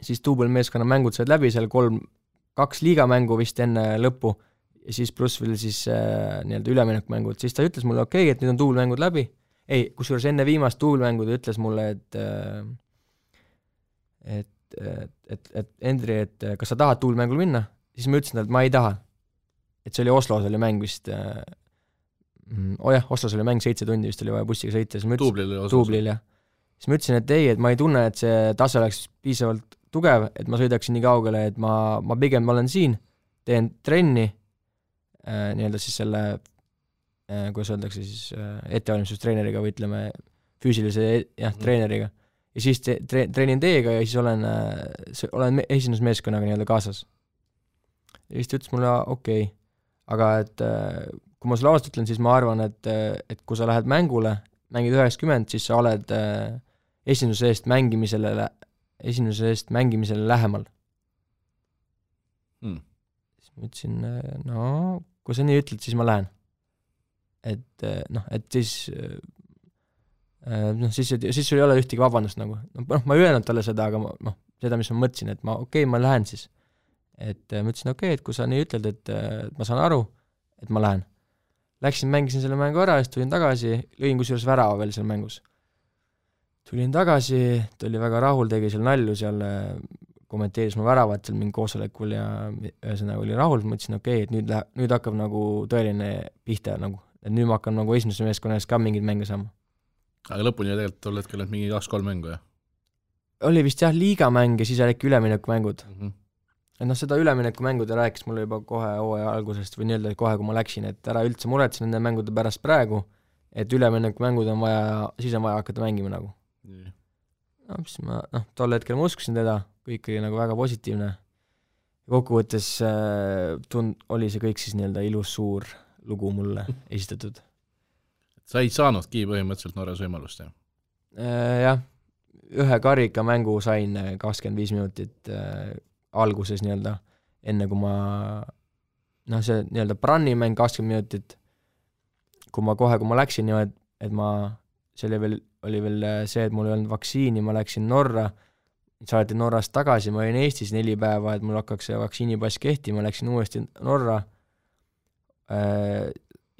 siis duubelmeeskonna mängud said läbi, seal 2 liigamängu vist enne lõppu ja siis pluss veel siis nii-öelda üleminekumängud, siis ta ütles mulle, okei, et nüüd on duubelmängud läbi. Ei, kusjuures enne viimast duubelmängu ta ütles mulle, et Endri, et kas sa tahad duubelmängul minna? Siis ma ütlesin, et ma ei taha. Et see oli Oslos oli mäng vist, Oslos oli mäng 7 tundi, vist oli vaja bussiga sõita. Duublil, jah. Siis ma ütlesin, et ei, et ma ei tunne, et see tase oleks piisavalt tugev, et ma sõidaksin nii kaugele, et ma pigem olen siin, teen trenni, nii-öelda siis selle, kuidas öeldakse siis, ettevalmistustreeneriga või ütleme füüsilise treeneriga. Ja siis treenin teiega ja siis olen esindusmeeskonnaga nii-öelda kaasas. Ja siis ta ütles mulle, okei, aga et kui ma sulle ausalt ütlen, siis ma arvan, et kui sa lähed mängule, mängid 90, siis sa oled esimese eest mängimisele lähemal. Siis ma ütlesin, no kui sa nii ütled, siis ma lähen. Et siis siis sul ei ole ühtegi vabandust nagu. Ma ei öelnud talle seda, aga seda, mis ma mõtlesin, et ma lähen siis. Et ma ütlesin, et kui sa nii ütled, et ma saan aru, et ma lähen. Läksin, mängisin selle mängu ära, siis tulin tagasi, lõin kusjuures värava veel seal mängus. Tulin tagasi, ta oli väga rahul, tegi seal nalju seal, kommenteeris mu väravat seal mingi koosolekul ja ühesõnaga oli rahul, ma ütlesin, et nüüd hakkab nagu tõeline pihta nagu, et nüüd ma hakkan nagu esimese meeskonnas ka mingid mänge saama. Aga lõpuni tegelikult tol hetkel oled mingi 2-3 mängu, jah? Oli vist jah liigamäng ja siis äkki üleminekumängud. Et seda üleminekumängu ta rääkis mulle juba kohe hooaja algusest või nii-öelda kohe, kui ma läksin, et ära üldse muretsen nende mängude pärast praegu, et üleminekumängud on vaja, siis on vaja hakata mängima nagu. Siis ma, tol hetkel ma uskusin teda, kõik oli nagu väga positiivne. Kokkuvõttes oli see kõik siis nii-öelda ilus suur lugu mulle esitatud. Sa ei saanudki põhimõtteliselt Norras võimalust, jah? Jah, ühe karika mängu sain 25 minutit alguses nii-öelda, enne kui ma see nii-öelda brannimäng 20 minutit, kui ma läksin niimoodi, et see oli veel see, et mul ei olnud vaktsiini, ma läksin Norra, saati Norrast tagasi, ma olin Eestis 4 päeva, et mul hakkaks see vaktsiinipass kehtima, läksin uuesti Norra,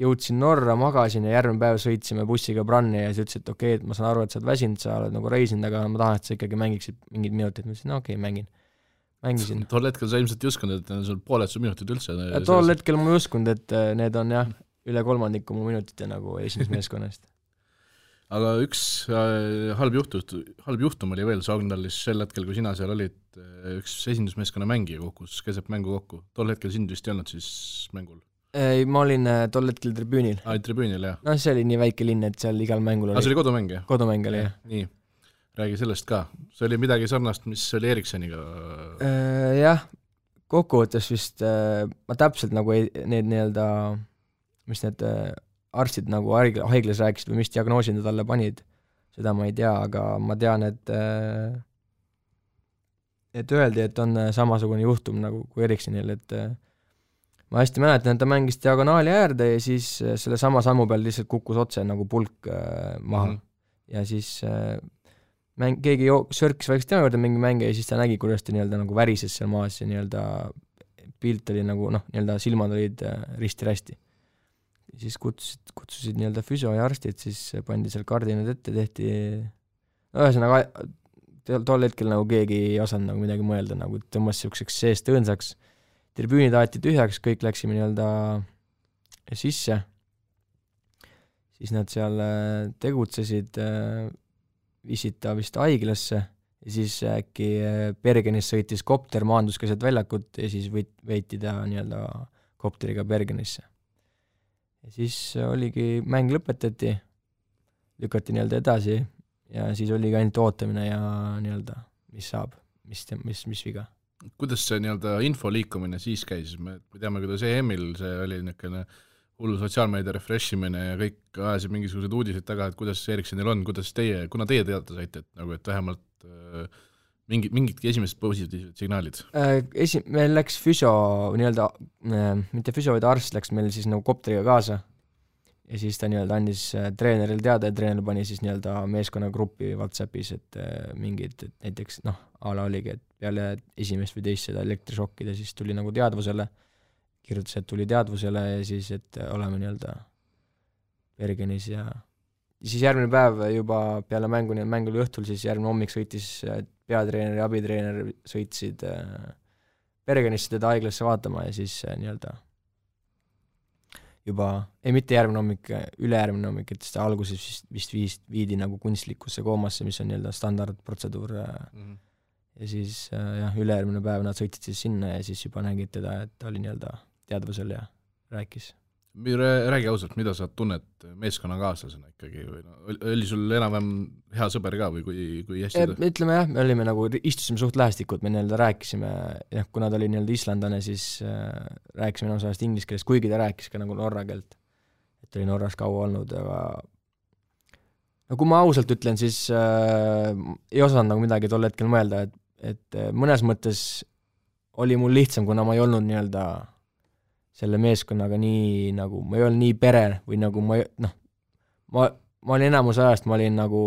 jõudsin Norra, magasin ja järgmine päev sõitsime bussiga branni ja siis ütles, et et ma saan aru, et sa oled väsinud, sa oled nagu reisinud, aga ma tahan, et sa ikkagi mängiksid mingid minutit, ma ütlesin, mängisin. Tol hetkel sa ilmselt ei uskunud, et sul pooled su minutid üldse. Tol hetkel ma ei uskunud, et need on jah, üle 3 mu minutite nagu esimese meeskonnast. Aga üks halb juhtum oli veel Sogndallis sel hetkel, kui sina seal olid, üks esindusmeeskonna mängija kukkus keset mängu kokku. Tol hetkel sind vist ei olnud siis mängul? Ei, ma olin tol hetkel tribüünil. Tribüünil, jah. See oli nii väike linn, et seal igal mängul oli. See oli kodumäng, jah? Kodumäng oli, jah. Nii. Räägi sellest ka. See oli midagi sarnast, mis oli Eriksoniga? Jah, kokkuvõttes vist ma täpselt nagu need nii-öelda, mis need arstid nagu haiglas rääkisid või mis diagnoosid nad talle panid, seda ma ei tea, aga ma tean, et öeldi, et on samasugune juhtum nagu kui Eriksonil, et ma hästi mäletan, et ta mängis diagonaali äärde ja siis selle sama sammu peal lihtsalt kukkus otse nagu pulk maha ja siis keegi sörkis vaikselt tema juurde mingi mänge ja siis ta nägi, kuidas ta nii-öelda nagu värises seal maas ja nii-öelda pilt oli nagu, nii-öelda silmad olid risti-rästi. Siis kutsusid nii-öelda füsio ja arstid, siis pandi seal kardinad ette, tehti, ühesõnaga tol hetkel nagu keegi ei osanud nagu midagi mõelda, nagu tõmbas selliseks seest õõnsaks, tribüünid aeti tühjaks, kõik läksime nii-öelda sisse, siis nad seal tegutsesid, viisid ta vist haiglasse ja siis äkki Bergenis sõitis kopter, maandus keset väljakut ja siis veeti ta nii-öelda kopteriga Bergenisse. Ja siis oligi, mäng lõpetati, lükati nii-öelda edasi ja siis oligi ainult ootamine ja nii-öelda, mis saab, mis viga. Kuidas see nii-öelda info liikumine siis käis? Me teame, kuidas EM-il see oli niisugune hullu sotsiaalmeedia refreshimine ja kõik ajasid mingisugused uudised taga, et kuidas Erikssonil on, kuidas kuna teie teada saite, et vähemalt mingidki esimesed positiivsed signaalid? Meil läks füsio, nii-öelda, mitte füsio, vaid arst läks meil siis nagu kopteriga kaasa ja siis ta nii-öelda andis treeneril teada ja treener pani siis nii-öelda meeskonnagruppi WhatsAppis, et mingid, et näiteks ala oligi, et peale esimest või teist seda elektrišokkida siis tuli nagu teadvusele, kirjutas, et tuli teadvusele ja siis, et oleme nii-öelda Bergenis ja siis järgmine päev juba peale mänguli õhtul, siis järgmine hommik sõitis peatreener ja abitreener sõitsid Bergenisse teda haiglasse vaatama ja siis nii-öelda juba, mitte järgmine hommik, ülejärgmine hommik, et seda alguses vist viidi nagu kunstlikusse koomasse, mis on nii-öelda standardprotseduur ja siis ülejärgmine päev nad sõitsid siis sinna ja siis juba nägid teda, et ta oli nii-öelda teadvusel ja rääkis. Räägi ausalt, mida sa tunned meeskonnakaaslasena ikkagi või oli sul enam-vähem hea sõber ka või kui hästi? Ütleme jah, me olime nagu, istusime suht lähestikud, me nii-öelda rääkisime, kuna ta oli nii-öelda islandane, siis rääkisime enam sellest inglise keelest, kuigi ta rääkis ka nagu norra keelt. oli Norras kaua olnud, aga no kui ma ausalt ütlen, siis ei osanud nagu midagi tol hetkel mõelda, et mõnes mõttes oli mul lihtsam, kuna ma ei olnud nii-öelda selle meeskonnaga nii nagu, ma ei olnud nii pere või nagu ma olin enamus ajast, ma olin nagu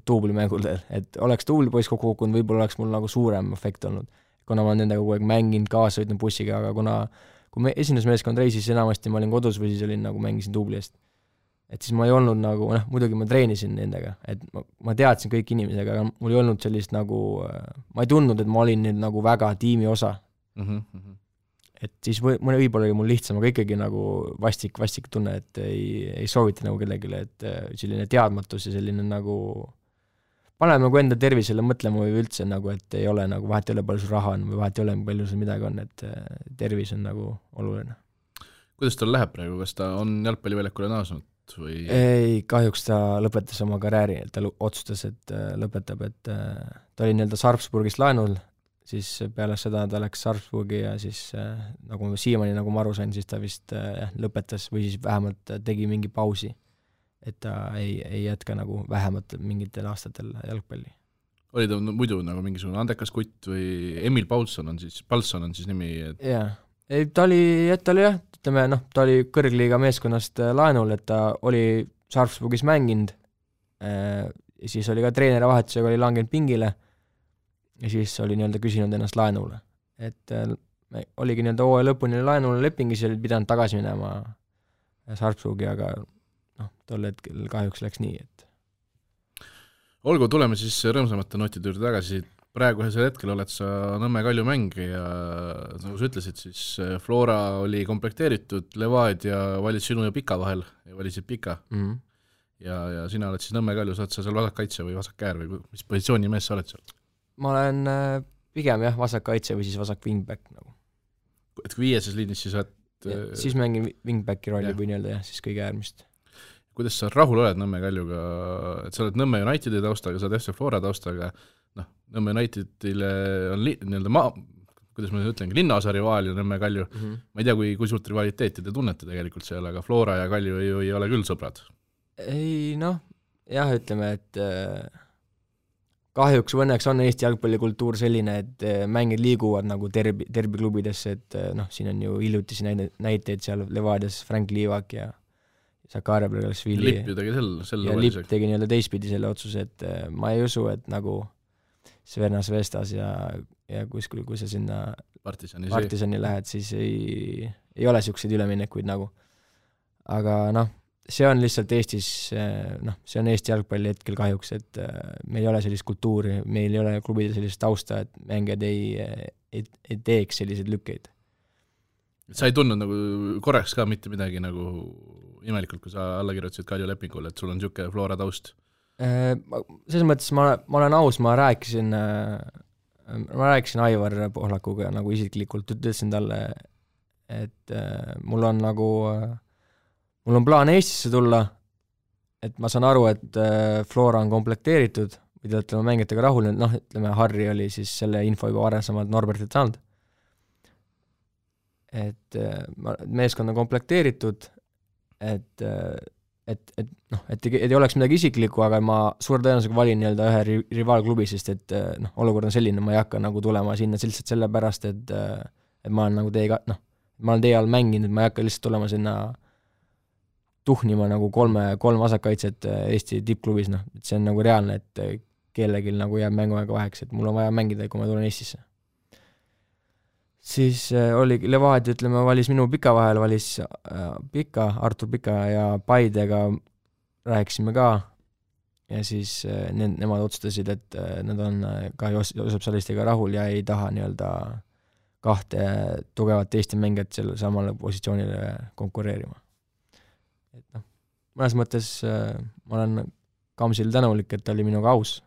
duublimängul, et oleks duublipoiss kokku kukkunud, võib-olla oleks mul nagu suurem efekt olnud, kuna ma olen nendega kogu aeg mänginud, kaasa sõitnud bussiga, aga kui me esindusmeeskond reisis, enamasti ma olin kodus või siis olin nagu mängisin duubli eest. Et siis ma ei olnud nagu, muidugi ma treenisin nendega, et ma teadsin kõik inimesega, aga mul ei olnud sellist nagu, ma ei tundnud, et ma olin nüüd nagu väga tiimi osa. Et siis võib-olla oli mul lihtsam, aga ikkagi nagu vastik tunne, et ei soovita nagu kellegile, et selline teadmatus ja selline nagu paneme nagu enda tervisele mõtlema või üldse nagu, et ei ole nagu, vahet ei ole palju sul raha on või vahet ei ole palju sul midagi on, et tervis on nagu oluline. Kuidas tal läheb praegu, kas ta on jalgpalliväljakule naasnud? Või... Ei, kahjuks ta lõpetas oma karjääri, ta otsustas, et lõpetab, et ta oli nii-öelda Sarpsburgist laenul, siis peale seda ta läks Sarpsburgi ja siis nagu siiamaani, nagu ma aru sain, siis ta vist lõpetas või siis vähemalt tegi mingi pausi, et ta ei jätka nagu vähemalt mingitel aastatel jalgpalli. Oli ta muidu nagu mingisugune andekas kutt või Emil Paulson on siis nimi? Et... Jaa. Ei, ta oli ütleme, ta oli kõrgliiga meeskonnast laenul, et ta oli Sarpsburgis mänginud, siis oli ka treeneri vahetusega oli langenud pingile ja siis oli nii-öelda küsinud ennast laenule. Et oligi nii-öelda hooaja lõpuni laenule lepingis ja oli pidanud tagasi minema Sarpsburgi, aga tol hetkel kahjuks läks nii, et olgu, tuleme siis rõõmsamate notide juurde tagasi. Praegusel hetkel oled sa Nõmme Kalju mängija, nagu sa ütlesid, siis Flora oli komplekteeritud, Levadia valis sinu ja Pika vahel ja valisid Pika. Ja sina oled siis Nõmme Kalju, saad sa seal vasakkaitse või vasakkäär või mis positsiooni mees sa oled seal? Ma olen pigem vasakkaitse või siis vasak wingback nagu. Et kui viieses liinis siis oled... Siis mängin wingbacki rolli või nii-öelda siis kõige äärmist. Kuidas sa rahul oled Nõmme Kaljuga, et sa oled Nõmme Unitedi taustaga, sa oled FC Flora taustaga, Nõmme Unitedile on kuidas ma ütlen, linnaosa rivaal ja Nõmme Kalju. Ma ei tea, kui suurt rivaliteeti te tunnete tegelikult seal, aga Flora ja Kalju ei ole küll sõbrad. Ei, jah, ütleme, et kahjuks või õnneks on Eesti jalgpallikultuur selline, et mängid liiguvad nagu derbiklubidesse, et siin on ju hiljutisi näiteid seal Levadias Frank Liivak ja Sakaria Bergasvili. Lipp ju tegi ja Lipp tegi nii-öelda teistpidi selle otsuse, et ma ei usu, et nagu Svernas Vestas ja kuskil, kui sa sinna Partisani lähed, siis ei ole siukseid üleminekuid nagu. Aga see on lihtsalt Eestis, see on Eesti jalgpalli hetkel kahjuks, et meil ei ole sellist kultuuri, meil ei ole klubide sellist tausta, et mängijad ei teeks selliseid lükkeid. Sa ei tundnud nagu korraks ka mitte midagi nagu imelikult, kui sa alla kirjutasid Kalju lepingule, et sul on niisugune Flora taust? Selles mõttes ma olen aus, ma rääkisin Aivar Pohlakuga nagu isiklikult, ütlesin talle, et mul on plaan Eestisse tulla, et ma saan aru, et Flora on komplekteeritud, või te olete mängijatega rahul, ütleme, Harri oli siis selle info juba varasemalt Norbertilt saanud, et meeskond on komplekteeritud, et ei oleks midagi isiklikku, aga ma suure tõenäosusega valin nii-öelda ühe rivaalklubi, sest et olukord on selline, ma ei hakka nagu tulema sinna lihtsalt sellepärast, et ma olen nagu ma olen teie all mänginud, ma ei hakka lihtsalt tulema sinna tuhnima nagu kolm vasakkaitset Eesti tippklubis, et see on nagu reaalne, et kellelgi nagu jääb mänguaega vaheks, et mul on vaja mängida, kui ma tulen Eestisse. Siis oli Levadia, ütleme, valis minu Pika vahel, valis Artur Pika ja Paidega rääkisime ka ja siis nemad otsustasid, et nad on ka Joosep Salistiga rahul ja ei taha nii-öelda kahte tugevat Eesti mängijat selle samale positsioonile konkureerima. Et mõnes mõttes ma olen Kamsil tänulik, et ta oli minuga aus.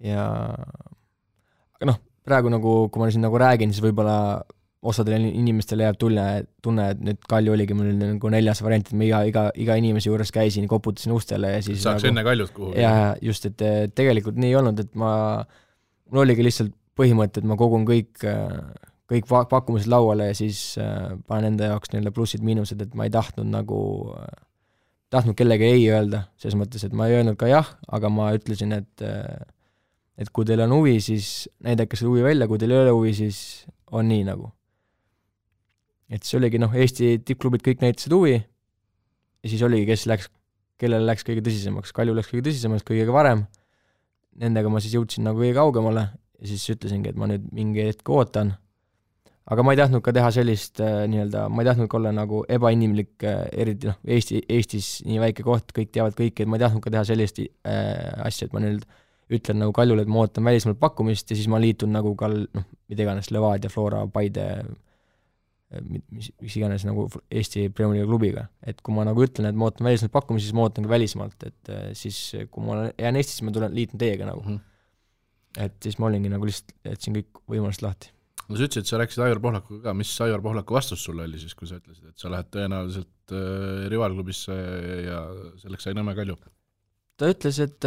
Ja aga praegu nagu, kui ma siin nagu räägin, siis võib-olla osadele inimestele jääb tunne, et nüüd Kalju oligi mul nagu 4. variant, et ma iga inimese juures käisin, koputasin ustele ja siis saaks enne Kaljut kuhu. Ja just, et tegelikult nii ei olnud, et mul oligi lihtsalt põhimõte, et ma kogun kõik kõik pakkumised lauale ja siis panen enda jaoks nii-öelda plussid-miinused, et ma ei tahtnud kellegi ei öelda, selles mõttes, et ma ei öelnud ka jah, aga ma ütlesin, et kui teil on huvi, siis näidake selle huvi välja, kui teil ei ole huvi, siis on nii nagu. Et see oligi, Eesti tippklubid kõik näitasid huvi ja siis oligi, kellele läks kõige tõsisemaks. Kalju läks kõige tõsisemaks, kõige varem. Nendega ma siis jõudsin nagu kõige kaugemale ja siis ütlesingi, et ma nüüd mingi hetk ootan. Aga ma ei tahtnud ka teha sellist ma ei tahtnud ka olla nagu ebainimlik, eriti Eestis nii väike koht, kõik teavad kõiki, et ma ei tahtnud ka teha sellist asja, et ma nüüd ütlen nagu Kaljule, et ma ootan välismaalt pakkumist ja siis ma liitun nagu ka mida iganes Levadia, Flora, Paide, mis iganes nagu Eesti Premier League klubiga. Et kui ma nagu ütlen, et ma ootan välismaalt pakkumist, siis ma ootan ka välismaalt, et siis kui ma jään Eestis, ma liitun teiega nagu. Et siis ma olingi nagu lihtsalt, et siin kõik võimalust lahti. No sa ütlesid, et sa rääkisid Aivar Pohlakuga ka, mis Aivar Pohlaku vastus sulle oli siis, kui sa ütlesid, et sa lähed tõenäoliselt rivaalklubisse ja selleks sai Nõmme Kalju? Ta ütles, et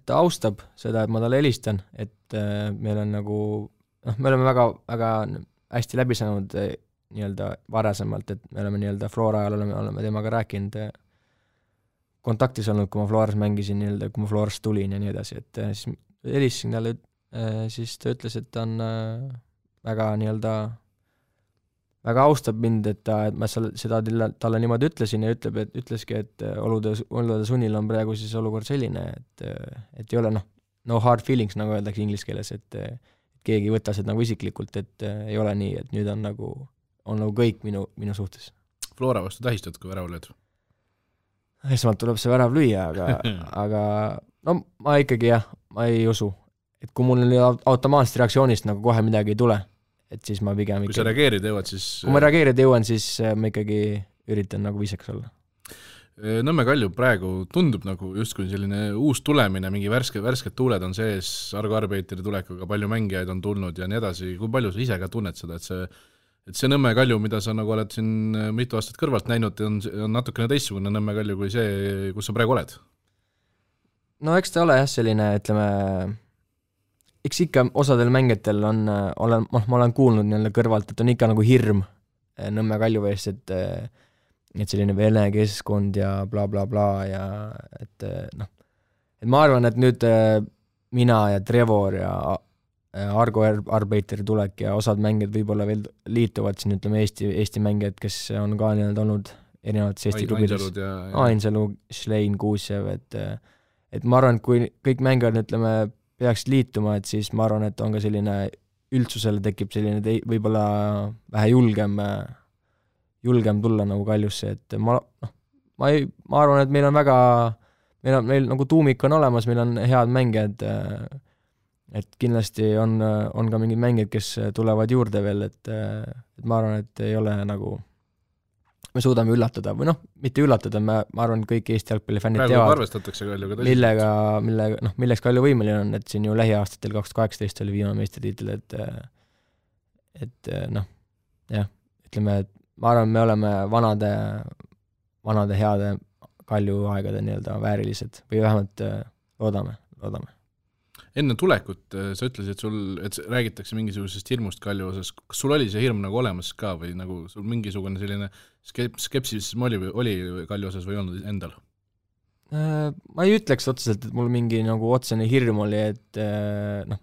ta austab seda, et ma talle helistan, et meil on nagu, me oleme väga, väga hästi läbi saanud nii-öelda varasemalt, et me oleme nii-öelda Flora ajal oleme temaga rääkinud, kontaktis olnud, kui ma Floras mängisin, nii-öelda, kui ma Florast tulin ja nii edasi, et siis helistasin talle, siis ta ütles, et ta on väga nii-öelda väga austab mind, et ma seda talle niimoodi ütlesin ja ütleski, et olude sunnil on praegu siis olukord selline, et ei ole no hard feelings, nagu öeldakse inglise keeles, et keegi võtta seda nagu isiklikult, et ei ole nii, et nüüd on nagu kõik minu suhtes. Flora vastu tähistad, kui värav lööd? Esmalt tuleb see värav lüüa, aga no ma ikkagi ma ei usu, et kui mul automaatsest reaktsioonist nagu kohe midagi ei tule, et siis ma pigem kui sa reageerida jõuad, siis kui ma reageerida jõuan, siis ma ikkagi üritan nagu viisaks olla. Nõmme Kalju praegu tundub nagu justkui selline uus tulemine, mingi värsked tuuled on sees, Argo Arbeiteri tulekuga palju mängijaid on tulnud ja nii edasi. Kui palju sa ise ka tunned seda, et see Nõmme Kalju, mida sa nagu oled siin mitu aastat kõrvalt näinud, on natukene teistsugune Nõmme Kalju kui see, kus sa praegu oled? No eks ta ole selline, ütleme, eks ikka osadel mängijatel ma olen kuulnud nii-öelda kõrvalt, et on ikka nagu hirm Nõmme Kalju ees, et selline vene keskkond ja bla bla bla ja et ma arvan, et nüüd mina ja Trevor ja Argo Arbeiteri tulek ja osad mängijad võib-olla veel liituvad siin, ütleme Eesti mängijad, kes on ka nii-öelda olnud erinevates Eesti klubides. Ainsalu, Schlein, Kuusjev, et ma arvan, et kui kõik mängijad, ütleme, peaks liituma, et siis ma arvan, et on ka selline üldsusele tekib selline võib-olla vähe julgem tulla nagu Kaljusse, et ma arvan, et meil on meil nagu tuumik on olemas, meil on head mängijad, et kindlasti on ka mingid mängijad, kes tulevad juurde veel, et ma arvan, et ei ole nagu me suudame üllatada, või mitte üllatada, ma arvan, et kõik Eesti jalgpallifännid teavad, milleks Kalju võimeline on, et siin ju lähiaastatel 2018 oli viimane meistritiitel, et jah, ütleme, et ma arvan, me oleme vanade heade Kalju aegade nii-öelda väärilised või vähemalt loodame. Enne tulekut sa ütlesid, et räägitakse mingisugusest hirmust Kalju osas. Kas sul oli see hirm nagu olemas ka või nagu sul mingisugune selline skepsism oli Kalju osas või olnud endal? Ma ei ütleks otseselt, et mul mingi nagu otsene hirm oli, et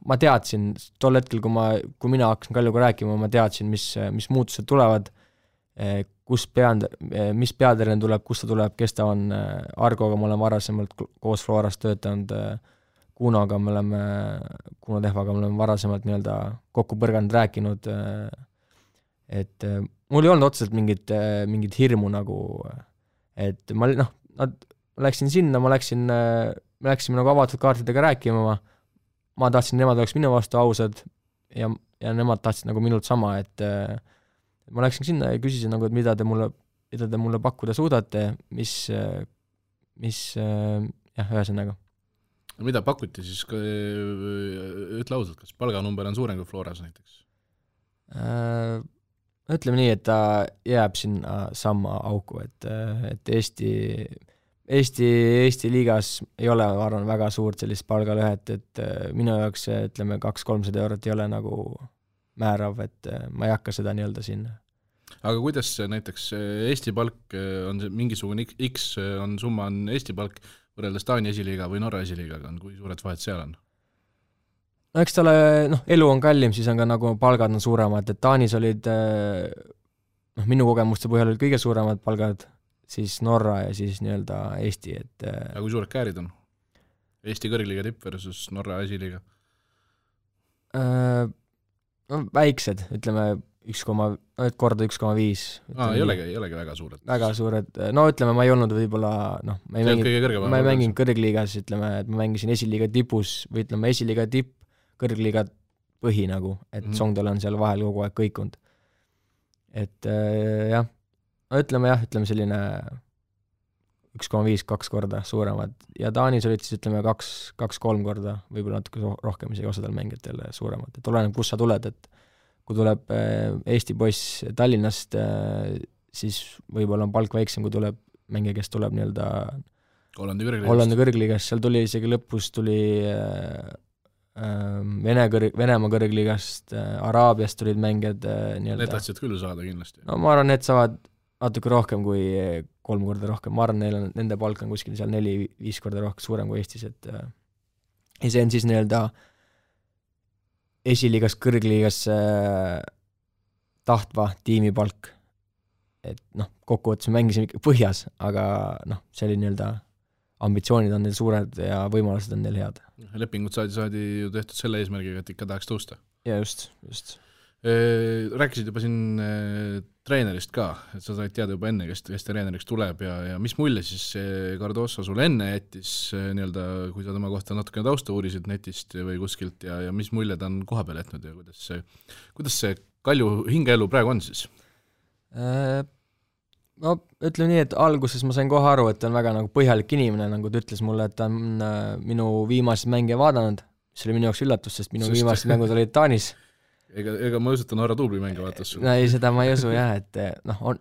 ma teadsin tol hetkel, kui mina hakkasin Kaljuga rääkima, ma teadsin, mis muutused tulevad, mis peatreener tuleb, kus ta tuleb, kes ta on. Argoga ma olen varasemalt koos Florast töötanud, Kuno Tehvaga me oleme varasemalt nii-öelda kokku põrganud rääkinud, et mul ei olnud otseselt mingit hirmu nagu, et ma läksin sinna, me läksime nagu avatud kaartidega rääkima, ma tahtsin, nemad oleks minu vastu ausad ja nemad tahtsid nagu minult sama, et ma läksin sinna ja küsisin nagu, et mida te mulle pakkuda suudate, mis ühesõnaga. Mida pakuti siis, ütle ausalt, kas palganumber on suurem kui Floras näiteks? Ütleme nii, et ta jääb sinna sama auku, et Eesti liigas ei ole, ma arvan, väga suurt sellist palgalõhet, et minu jaoks, ütleme, 200-300 eurot ei ole nagu määrav, et ma ei hakka seda nii-öelda siin. Aga kuidas näiteks Eesti palk on see mingisugune X on summa on Eesti palk võrreldes Taani esiliiga või Norra esiliigaga on, kui suured vahed seal on? No eks talle, elu on kallim, siis on ka nagu palgad on suuremad, et Taanis olid, minu kogemuste põhjal olid kõige suuremad palgad, siis Norra ja siis nii-öelda Eesti, et aga kui suured käärid on? Eesti kõrgliiga tipp versus Norra esiliiga? No väiksed, ütleme 1,5. Ei olegi väga suured. Väga suured, no ütleme, ma ei olnud võib-olla, ma ei mänginud kõrgliigas, ütleme, et ma mängisin esiliiga tipus, või ütleme esiliiga tipp, kõrgliiga põhi nagu, et Songdel on seal vahel kogu aeg kõikunud. Et jah, no ütleme selline 1,5-2 korda suuremad ja Taanis olid siis ütleme 2-3 korda, võib-olla natuke rohkem isegi osadel mängijatel suuremad, et oleneb, kus sa tuled, et kui tuleb Eesti poiss Tallinnast, siis võib-olla on palk väiksem, kui tuleb mängija, kes tuleb nii-öelda Hollandi kõrgliigast, seal tuli isegi lõpus tuli Venemaa kõrgliigast, Araabiast tulid mängijad nii-öelda. Need tahtsid küll saada kindlasti. No ma arvan, need saavad natuke rohkem kui 3 korda rohkem, ma arvan, nende palk on kuskil seal 4-5 korda rohkem suurem kui Eestis, et ja see on siis nii-öelda esiliigas kõrgliigas tahtva tiimi palk, et kokkuvõttes me mängisime ikka põhjas, aga see oli nii-öelda ambitsioonid on neil suured ja võimalused on neil head. Lepingud saadi ju tehtud selle eesmärgiga, et ikka tahaks tõusta. Ja just. Rääkisid juba siin treenerist ka, et sa said teada juba enne, kes treeneriks tuleb ja mis mulje siis Cardoso sul enne jättis nii-öelda, kui sa tema kohta natukene tausta uurisid netist või kuskilt ja mis mulje ta on koha peal jätnud ja kuidas see Kalju hingeelu praegu on siis? No ütleme nii, et alguses ma sain kohe aru, et ta on väga nagu põhjalik inimene, nagu ta ütles mulle, et ta on minu viimased mänge vaadanud, mis oli minu jaoks üllatus, sest minu viimased mängud olid Taanis. Ega ma usu, et ta Norra tuubli mänge vaatas sul? Ei, seda ma ei usu jah, et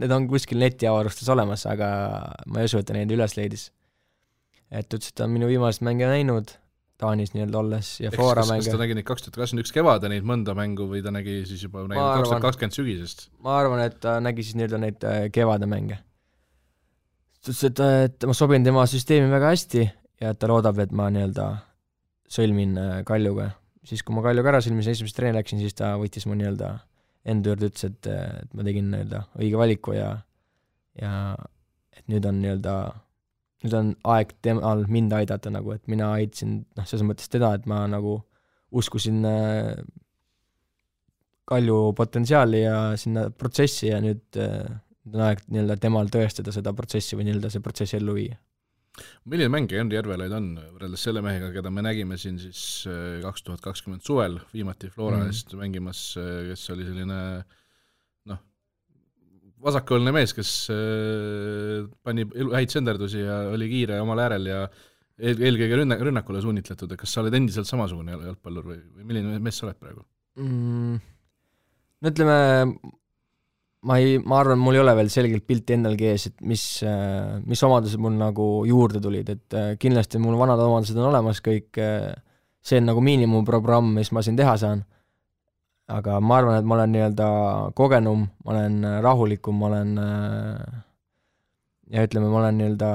need on kuskil netiavarustes olemas, aga ma ei usu, et ta neid üles leidis. Et ütles, et ta on minu viimased mänge näinud Taanis nii-öelda olles ja Flora mänge. Kas ta nägi neid 2021 kevade neid mõnda mängu või ta nägi siis juba 2020 sügisest? Ma arvan, et ta nägi siis nii-öelda neid kevade mänge. Ta ütles, et ma sobin tema süsteemi väga hästi ja et ta loodab, et ma nii-öelda sõlmin Kaljuga. Siis kui ma Kaljuga ära sõlmisin, esimest treeni läksin, siis ta võttis mu nii-öelda enda juurde, ütles, et ma tegin nii-öelda õige valiku ja et nüüd on aeg temal mind aidata, nagu, et mina aitasin, selles mõttes teda, et ma nagu uskusin Kalju potentsiaali ja sinna protsessi ja nüüd on aeg nii-öelda temal tõestada seda protsessi või nii-öelda see protsessi ellu viia. Milline mängija Henri Järvelaid on võrreldes selle mehega, keda me nägime siin siis 2020 suvel viimati Flora eest mängimas, kes oli selline vasakõolne mees, kes pani häid senderdusi ja oli kiire omal äärel ja eelkõige rünnakule suunitletud, et kas sa oled endiselt samasugune jalgpallur või milline mees sa oled praegu? No ütleme, ma arvan, mul ei ole veel selgelt pilti endalgi ees, et mis omadused mul nagu juurde tulid, et kindlasti mul vanad omadused on olemas kõik, see on nagu miinimumprogramm, mis ma siin teha saan. Aga ma arvan, et ma olen nii-öelda kogenum, ma olen rahulikum, ma olen ja ütleme, ma olen nii-öelda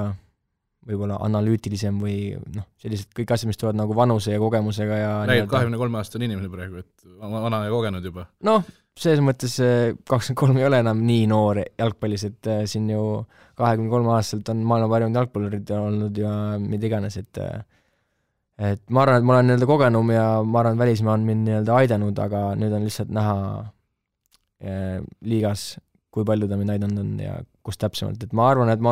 võib-olla analüütilisem või sellised kõik asjad, mis tulevad nagu vanuse ja kogemusega ja räägid 23-aastane inimene praegu, et vana ja kogenud juba. Selles mõttes 23 ei ole enam nii noor jalgpallis, et siin ju 23 aastaselt on maailma parimad jalgpallurid olnud ja mida iganes, et ma arvan, et ma olen nii-öelda kogenum ja ma arvan, et välismaa on mind nii-öelda aidanud, aga nüüd on lihtsalt näha liigas, kui palju ta mind aidanud on ja kus täpsemalt, et ma arvan, et ma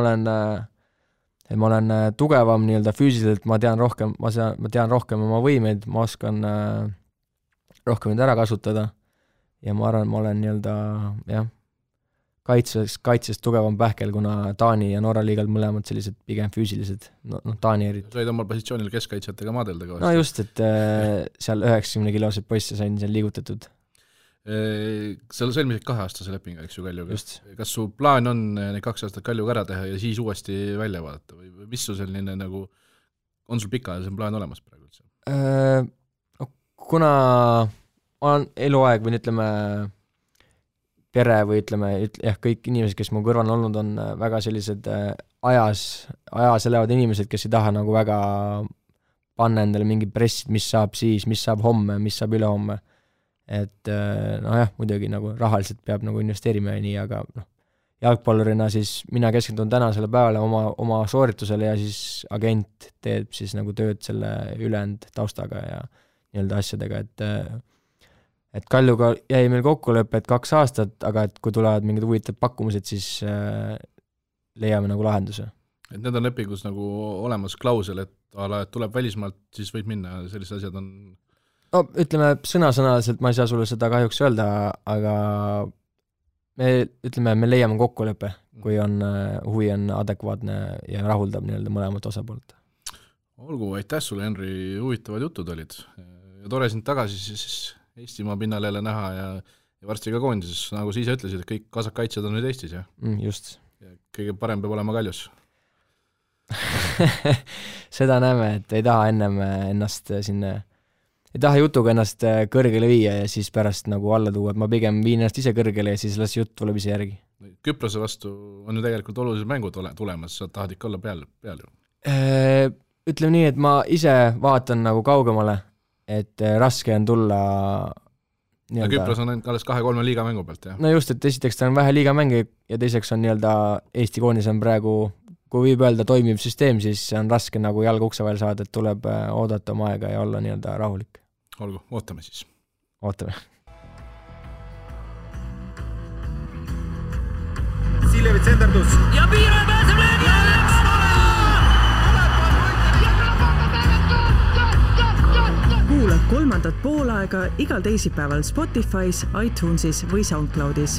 olen tugevam nii-öelda füüsiliselt, ma tean rohkem oma võimeid, ma oskan rohkem neid ära kasutada ja ma arvan, et ma olen nii-öelda kaitses tugevam pähkel, kuna Taani ja Norra liigad mõlemad sellised pigem füüsilised, Taani eriti. Said omal positsioonil keskkaitsjatega maadelda ka? No just, et seal 90-kilosed poisse sain seal liigutatud. Sa sõlmisid 2-aastase lepinga, eks ju, Kaljuga. Kas su plaan on need 2 aastat Kaljuga ära teha ja siis uuesti välja vaadata või mis su selline nagu, on sul pikaajalisem plaan olemas praegu üldse? Kuna olen eluaeg või ütleme pere või ütleme, kõik inimesed, kes mu kõrval on olnud, on väga sellised ajas elavad inimesed, kes ei taha nagu väga panna endale mingi pressid, mis saab siis, mis saab homme, mis saab ülehomme. Et nojah, muidugi nagu rahaliselt peab nagu investeerima ja nii, aga jalgpallurina siis mina keskendun tänasele päevale oma sooritusele ja siis agent teeb siis nagu tööd selle ülejäänud taustaga ja nii-öelda asjadega, et Kaljuga jäi meil kokkulepe, et 2 aastat, aga et kui tulevad mingid huvitavad pakkumused, siis leiame nagu lahenduse. Et need on lepingus nagu olemas klausel, et tuleb välismaalt, siis võib minna, sellised asjad on... No ütleme, sõnasõnaliselt ma ei saa sulle seda kahjuks öelda, aga me leiame kokkulepe, kui on huvi on adekvaatne ja rahuldab nii-öelda mõlemat osapoolt. Olgu, aitäh sulle, Henri, huvitavad jutud olid. Ja tore sind tagasi siis Eestimaa pinnal jälle näha ja varsti ka koondises, nagu sa ise ütlesid, et kõik kasakaitsjad on nüüd Eestis, jah? Just. Ja kõige parem peab olema Kaljus. Seda näeme, et ei taha ennem ennast sinna, ei taha jutuga ennast kõrgele viia ja siis pärast nagu alla tuua, et ma pigem viin ennast ise kõrgele ja siis las jutt tuleb ise järgi. Küprose vastu on ju tegelikult olulised mängud tulemas, sa tahad ikka olla peal ju? Ütleme nii, et ma ise vaatan nagu kaugemale, et raske on tulla ja Küpros on alles 2-3 liigamängu pealt, jah? No just, et esiteks ta on vähe liigamänge ja teiseks on nii-öelda Eesti koondis on praegu, kui võib öelda toimiv süsteem, siis on raske nagu jalga ukse vahel saada, et tuleb oodata oma aega ja olla nii-öelda rahulik. Olgu, ootame siis. Ootame. Siljevi tsenderdus. Ja Piire pääseb löögi! Kuula 3. poolaega igal teisipäeval Spotify's, iTunesis või SoundCloudis.